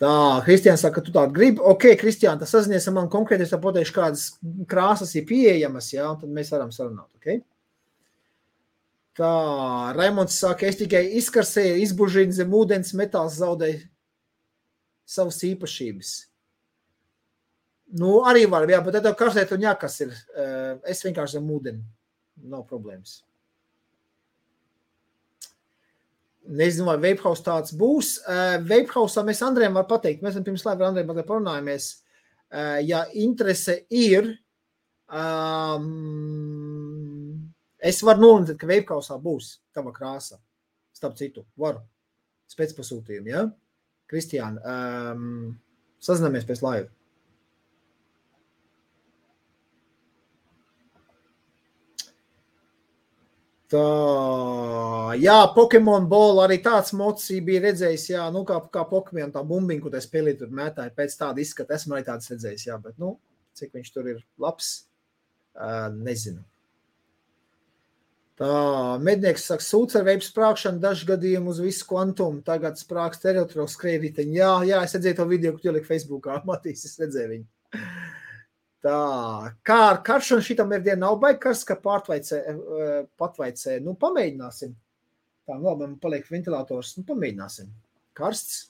Tā, Kristiāns saka, ka tu tādu gribi. Kristiān, tas sazinies ar man konkrēti, es tā pateikšu, kādas krāsas ir pieejamas, un tad mēs varam sarunāt, Tā, Raimonds saka, es tikai izkarsēju, izbužīnu zem ūdens, metāls zaudēju savas īpašības. Arī var, bet tev karstēt un jākas ir. Es vienkārši zem ūdeni. Nav problēmas. Nezinu, vai Vapehouse tāds būs. Vapehouse mēs Andrejam var pateikt. Mēs pirms laiva ar Andrejam parunājamies. Ja interese ir, es varu nolintēt, ka Vapehouse būs tava krāsa. Starp citu, varu. Spēcpasūtījumu, Kristiāna, sazināmies pēc laiva. Tā, Pokemon Ball arī tāds mods bija redzējis, kā Pokemon tā bumbiņa, ko tā spēlī tur mētāja, pēc tāda izskata, esmu arī tāds redzējis, bet, cik viņš tur ir labs, nezinu. Tā, mednieks saka, sūds ar veipu sprākšanu, dažu gadījumu uz visu kvantumu, tagad sprāks teritoriāli skrējriteņi. Jā, es redzēju to video, ko tu ielika Facebookā, Matīs, es redzēju viņu. Tā, kā ar karšanu šitam ir diena nav baigi karsts, ka patvaicē, pamēģināsim. Tā, labi, man paliek ventilators, pamēģināsim. Karsts.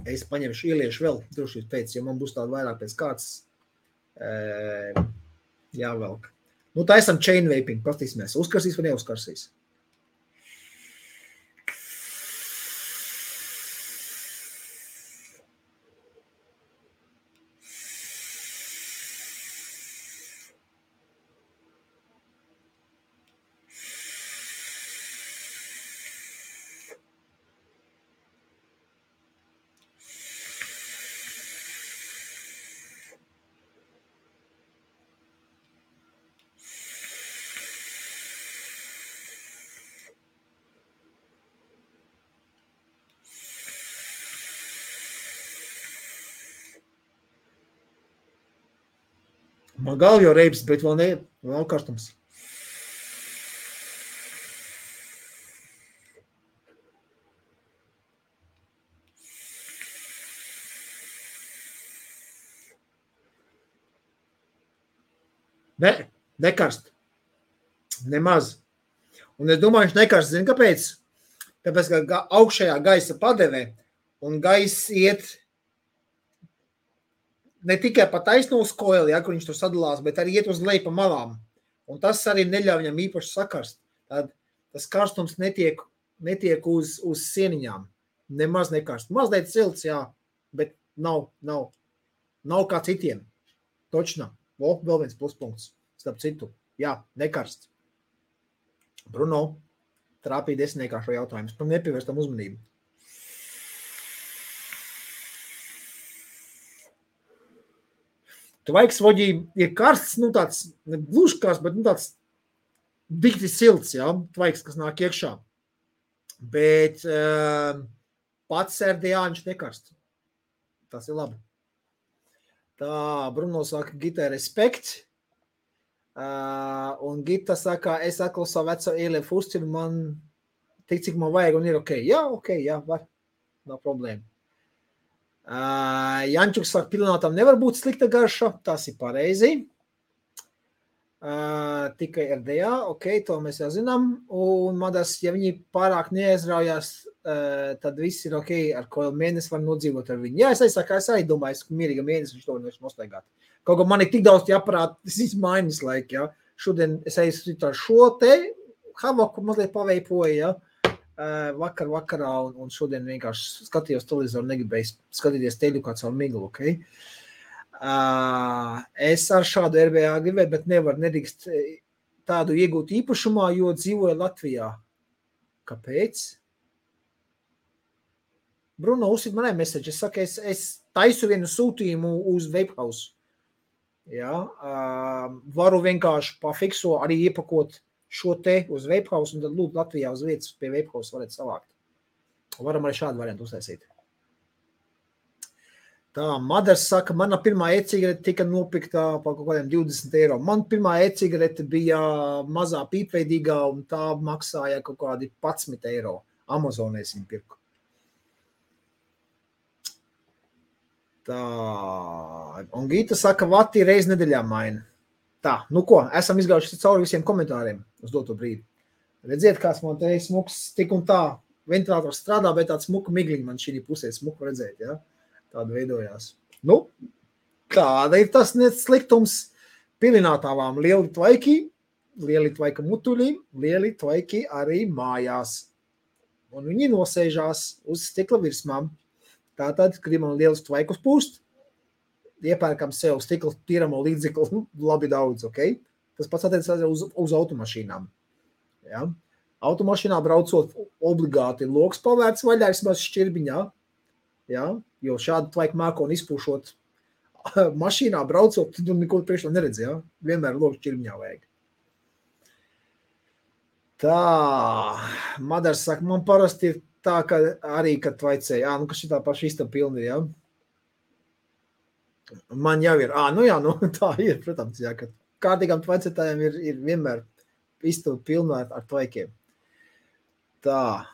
Es paņemšu, ieliešu vēl drošības pēc, jo man būs tāda vairāk pēc kārtas jāvelk. Tā esam chain vaping, pastīsimies. Uzkarsīs vai neuzkarsīs? Man galva jau reibs, bet vēl nav karstums. Nekarst. Nemaz. Un es domāju, viņš nekarst. Zini, kāpēc? Tāpēc, ka augšējā gaisa padevē un gaiss iet ne tikai pa taisno uz koili, kur viņš tur sadalās, bet arī iet uz leju pa malām. Un tas arī neļauj viņam īpaši sakarst. Tad tas karstums netiek uz sieniņām. Nemaz nekarst. Mazliet silts, bet nav kā citiem. Točna. Vēl viens pluspunkts. Starp citu. Nekarst. Bruno, trāpīja desmitniekā šo jautājumu. Par nepievērstam uzmanību. Tvaiks voģī ir karsts, tāds, ne gluži karsts, bet tāds dikti silts, ja, tvaiks, kas nāk iekšā. Bet pats RDA viņš nekarst. Tas ir labi. Tā, Bruno saka, Gita respekt. Un Gita saka, es atkal savu veco ELF uzciru, man tik, cik man vajag, un ir ok. Jā, var. Nav problēma. Jančuks saka, pilinātam nevar būt slikta garša. Tas ir pareizi. Tikai RDA, ok, to mēs jau zinām. Un Madas, ja viņi pārāk neaizraujās, tad viss ir ok, ar ko mēnesi var nodzīvot ar viņu. Jā, es domāju, ka mierīga mēnesi viņš to nevar nostaigāt. Kaut kā man ir tik daudz jāparāt, tas ir mainas laika, ja. Šodien es aizsūtu ar šo te havaku mazliet paveipoju, ja. Vakarā, un šodien vienkārši skatījos televizoru, negribēju skatīties teļu kā caur miglu, ok? Es ar šādu RBA gribēju, bet nedrīkst tādu iegūt īpašumā, jo dzīvoju Latvijā. Kāpēc? Bruno, uzsit manai message. Es saku, es taisu vienu sūtījumu uz Vapehouse. Ja, varu vienkārši pafikso arī iepakot šo te uz Vapehouse un tad lūdzu Latvijā uz vietas pie Vapehouse varat savākt. Varam arī šādu variantu uztaisīt. Tā, Madars saka, mana pirmā e-cigarete tika nopirkta par kaut kādiem 20 eiro. Man pirmā e-cigarete bija mazā pīpveidīgā un tā maksāja kaut kādi 11 eiro. Amazonēs viņu pirku. Tā, un Gita saka, vati reiz nedēļā maina. Tā, nu ko, esam izgājuši cauri visiem komentāriem uz doto brīdi. Redziet, kāds man te smuks tik un tā, ventilators strādā, bet tāds smuka migliņi man šī pusē smuku redzēt, ja? Tāda veidojās. Nu, tāda ir tas sliktums pilinātāvām. Lieli tvaiki mutuļi, lieli tvaiki arī mājās. Un viņi nosēžās uz stikla virsmām. Tātad, gribam lielus tvaikus pūst, iepērkam sev stikla tīramo līdzekli labi daudz, ok? Tas pats attiecās uz automašīnām. Ja? Automašīnā braucot obligāti loks pavērts vaļā, vismaz šķirbiņā, ja? Jo šādu tvaiku mākoni izpūšot mašīnā braucot, tu neko priekšā neredzi, ja? Vienmēr loks šķirbiņā vajag. Tā, Madars saka, man parasti ir tā, ka arī, kad tvaicēja, nu, ka šitā paša istaba pilna ir, ja? Man jau ir, tā ir, protams, jā, ka kārtīgām tvaicētājiem ir vienmēr istaba pilna ar tvaikiem. Tā.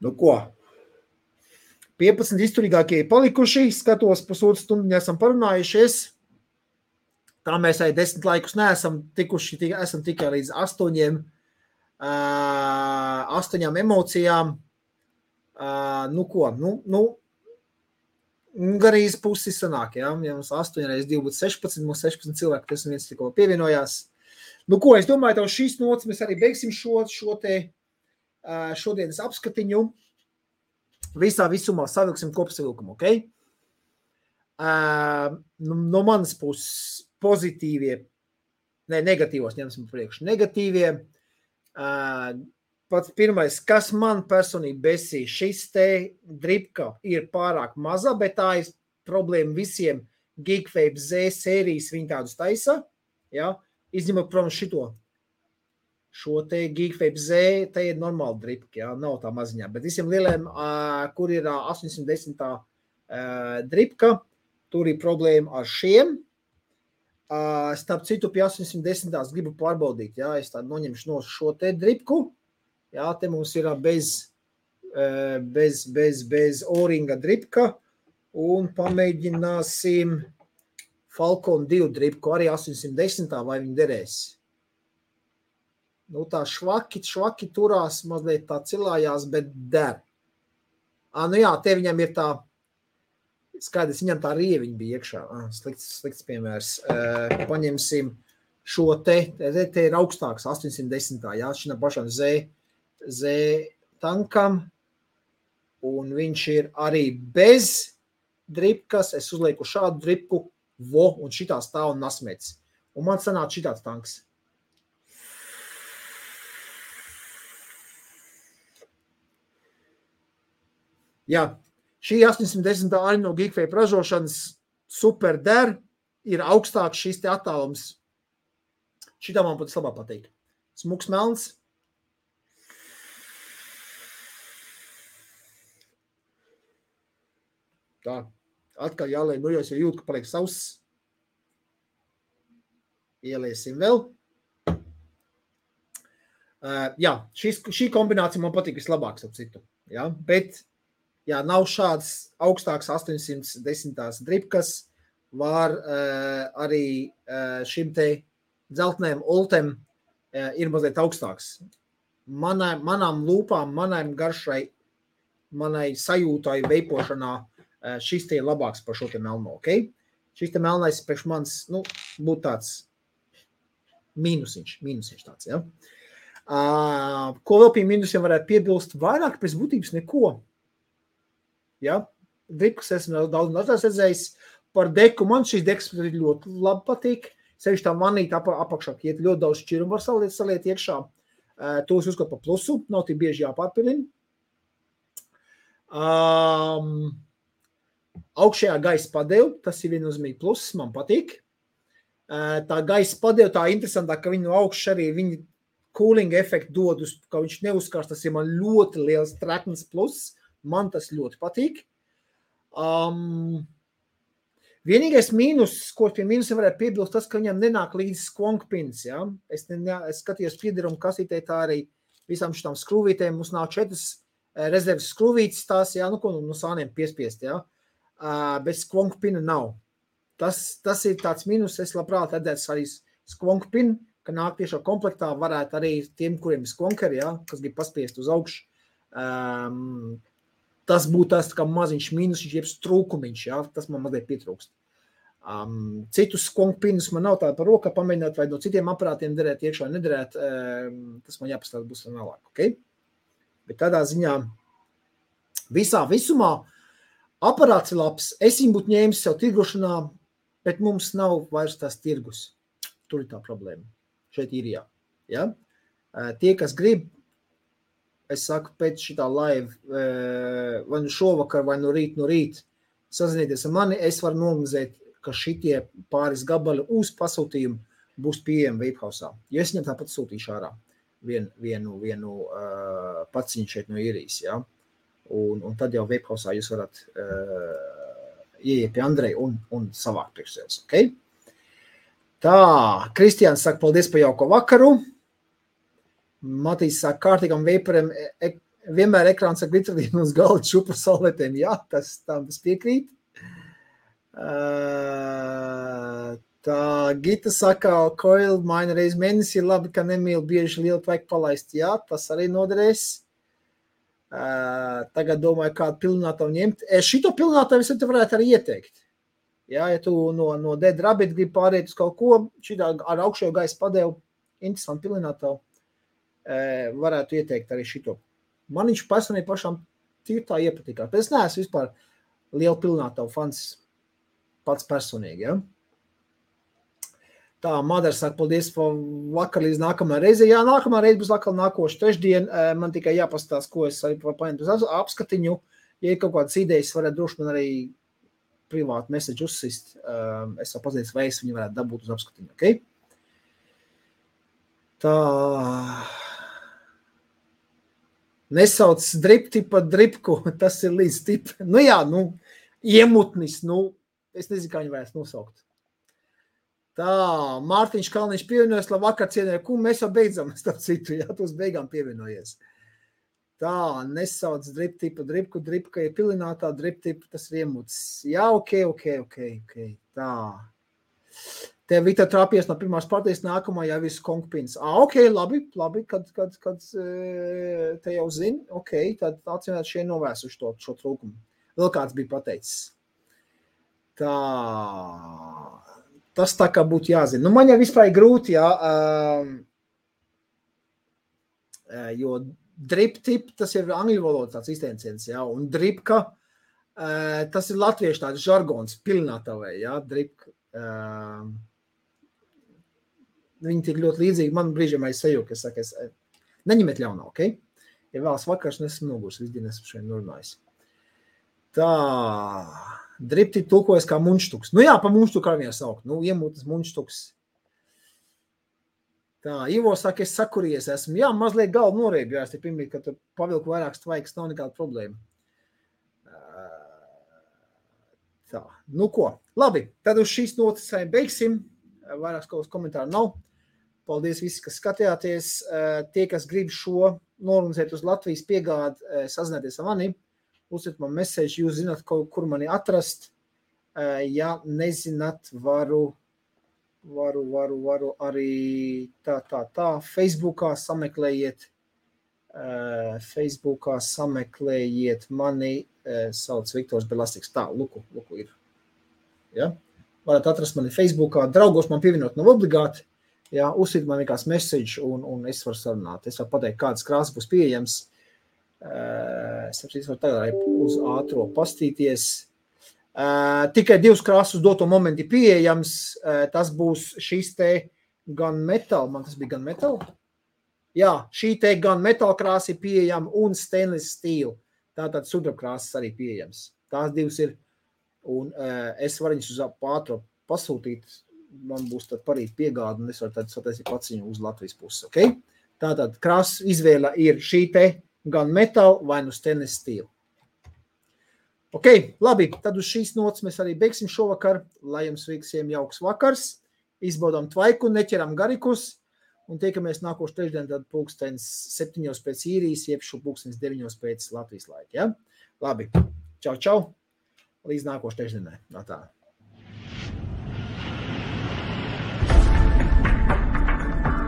Nu, ko? 15 izturīgākie palikuši, skatos pusotru stundu, esam parunājušies. Tā mēs arī 10 laikus neesam tikuši, esam tikai līdz 8 emocijām. Nu ko, garīz pusi sanāk, ja mums 8 reiz 2 būtu 16, mums 16 cilvēki, kas viens tikko pievienojās. Nu ko, es domāju, tev šīs nots mēs arī beigsim šo te šodienas apskatiņu. Visā visumā savilksim kopsavilkumu, ok? No manas puses pozitīvie, negatīvos ņemsim priekš. Negatīvie, pats pirmais, kas man personīgi besīja, šis te dripka ir pārāk maza, bet tā ir problēma visiem Geekvape Z sērijas, viņi tādus taisa, ja? Izņemot, protams, šo te Geekvape Z, te ir normāla dripka, ja? Nav tā maziņā, bet visiem lieliem, kur ir 810 dripka, tur ir problēma ar šiem. Starp citu, pie 810 gribu pārbaudīt, ja, es tādu noņemšu no šo te dripku, ja, te mums ir bez O-ringa dripka, un pamēģināsim Falcon 2 dripku, arī 810, vai viņi derēs. Nu tā švaki turās, mazliet tā cilājās, bet der. Nu jā, te viņam ir tā, skaidrs, viņam tā rieviņa bija iekšā. Slikts piemērs. Paņemsim šo te ir augstāks, 810. Jā, šim pašam Z tankam. Un viņš ir arī bez dripkas. Es uzlieku šādu dripku, un šitā stāv un nasmēts. Un man sanāca šitāds tanks. Jā. Šī 810 arī no Geekvape ražošanas super der, ir augstāks šis te attālums. Šitā man pat labāk patīk. Smuks melns. Tā, atkal jāliek, nu jau jūt, ka paliek sauss. Ieliesim vēl. Jā, šī kombinācija man patīk vislabāk, ap citu. Ja? Bet, ja nav šāds augstāks 810 dripkas, var arī šim te dzeltnēm oltem ir mazliet augstāks. Manām lūpām, manām garšai, manai sajūtai veipošanā šis te ir labāks par šo te melno, ok? Šis te melnais priekš mans, nu, būtu tāds mīnusiņš tāds, ja? Ko vēl pie mīnusiem varētu piebilst? Vairāk pēc būtības neko. Ja? Dripkas esmu daudz redzējis. Par deku man šīs dekas ļoti labi patīk. Sevišķi tā vanīta apakšā, iet ļoti daudz šķirumu var saliet iekšā. To es uzskatu par plusu, nav tik bieži jāpārpilina. Augšējā gaisa padeva, tas ir viennozīmīgi pluss, man patīk. Tā gaisa padeva, tā interesantā, ka viņi no augšas arī viņi cooling efektu dod, ka viņš neuzkars, tas ir man ļoti liels treknis pluss, man tas ļoti patīk. Vienīgais mīnus, ko pie mīnusiem varētu piebilst, tas, ka viņam nenāk līdz skvonkpins, ja? Es skatījos piederumu kasītē, tā arī visām šitām skrūvītēm, mums nav 4 rezerves skrūvītes tās, ja? Nu, ko no sāniem piespiest, ja? Bet skvonkpina nav. Tas ir tāds mīnus, es labprāt redzētu arī skvonkpinu, ka nāk tiešā komplektā varētu arī tiem, kuriem ir skvonkeri, ja? Kas grib paspiest uz augšu. Tas būtu tas kā maziņš mīnus, jeb trūkumiņš, ja? Tas man mazliet pietrūkst. Citus skvonkpinus man nav tāda par rokā pamēģināt, vai no citiem aparātiem derēt iekšā, nederēt, tas man jāpastāv būs vēlāk, ok? Bet tādā ziņā visumā aparāts ir labs, es viņu būtu ņēmis sev tirgošanā, bet mums nav vairs tās tirgus. Tur ir tā problēma. Šeit ir jā. Ja? Tie, kas grib, es saku, pēc šitā live, vai nu šovakar, vai no rīt, sazinieties ar mani, es varu nomazēt, ka šitie pāris gabali uz pasūtījumu būs pieejami Vapehausā. Jo es viņam tāpat sūtīšu ārā vienu paciņu šeit no Irijas, ja? Un tad jau Vapehausā jūs varat ieiet pie Andreja un savākt priekš sevis, ok? Tā, Kristiāns saka, paldies par jauko vakaru. Matīs saka, kārtīgam vaporiem vienmēr ekrāns ar glitterīnu uz galda čupru saulētēm. Jā, tas piekrīt. Tā, Gita saka, coil maina reiz mēnesi ir labi, ka nemīl bieži lielu vajag palaist. Jā, tas arī noderēs. Tagad domāju, kādu pilnātavu ņemt. Šito pilnātavu es te varētu arī ieteikt. Ja tu no Dead Rabbit gribi pārēt uz kaut ko, šitā ar augšējo gaisa padevu, interesanti pilnātavu, varētu ieteikt arī šito. Man viņš personīgi pašām tīri tā iepatikā. Bet es neesmu vispār lielu pilnātavu fans pats personīgi, ja? Tā, Madara saka, paldies par vakar līdz nākamā reize. Jā, nākamā reize būs atkal nākošu trešdien. Man tikai jāpastās, ko es arī paņemt uz apskatiņu. Ja ir kaut kādas idejas, varētu droši man arī privātu message uzsist. Es vēl pazīstu, vai es viņu varētu dabūt uz apskatiņu, ok? Tā. Nesauc dripti pa dripku, tas ir līdz tip. Nu jā, iemutnis, es nezinu, kā viņu varētu nosaukt. Tā, Mārtiņš Kalniņš pievienojas, labvakar cienēja, mēs jau beidzam, starp citu, jā, tos beigām pievienojies. Tā, nesauc driptipa, dripka ir pilinātā, driptipa, tas ir iemuts. Jā, ok. Tā. Tev Vita trāpies no pirmās partijas, nākamā jau visu konkpins. Ok, labi, kad te jau zini, ok, tad atsimēt šie novērsuši šo trūkumu. Vēl kāds bija pateicis. Tā. Tas tā kā būtu jāzina. Man jau vispār ir grūti, jā, jo drip-tip, tas ir angļu valoda tāds izteiciens, jā, un dripka, tas ir latviešu tāds žargons, pilnātavē, jā, dripka. Viņi tik ļoti līdzīgi, man brīžiem aizseju, ka es saku, neņemiet ļaunā, ok? Ja vēlas vakars, nesmu nogurs, visdien esmu šeit norunājis. Tā, Dripti tulkojas kā munštuks. Nu jā, pa munštuku arī saukt. Nu, iemūtas munštuks. Tā, Ivo saka, es sakuries esmu. Jā, mazliet galvu norēbjās, te pirmīt, ka tu pavilku vairāk tvaikas, nav nekāda problēma. Tā, nu ko, labi, tad uz šīs notas beigsim. Vairāks kaut kas komentāru nav. Paldies visi, kas skatījāties. Tie, kas grib šo norunizēt uz Latvijas piegādi, sazināties ar mani. Uzsūt man message, jūs zināt, kur mani atrast. Ja nezināt, varu arī tā. Facebookā sameklējiet mani, sauc Viktors Belastiks. Tā, luku ir. Ja? Varat atrast mani Facebookā. Draugos man pievienot nav obligāti. Ja? Uzsīt man vienkārši message un es varu sarunāt. Es varu pateikt, kādas krāsas būs pieejams. Es varu tagad arī uz ātro pastīties. Tikai 2 krāsas doto momenti pieejams. Tas būs šīs te gunmetal. Man tas bija gunmetal? Jā, šī te gunmetal krāsa ir pieejama un stainless steel. Tātad sudraba krāsas arī pieejams. Tās 2 ir. Un es varu viņus uz ātro pasūtīt. Man būs tad parīt piegāda un es varu tad sataisīt pats viņu uz Latvijas pusi. Okay? Tātad krāsas izvēle ir šī te gunmetal vai nu stainless steel. Ok, labi, tad uz šīs notas mēs arī beigsim šovakar, lai jums visiem jauks vakars, izbaudām tvaiku, neķeram garikus un tiekamies nākošu trešdien tad 7 pēc īrijas, jeb 9 pēc Latvijas laika. Ja? Labi, čau, līdz nākošu trešdienai. Tā.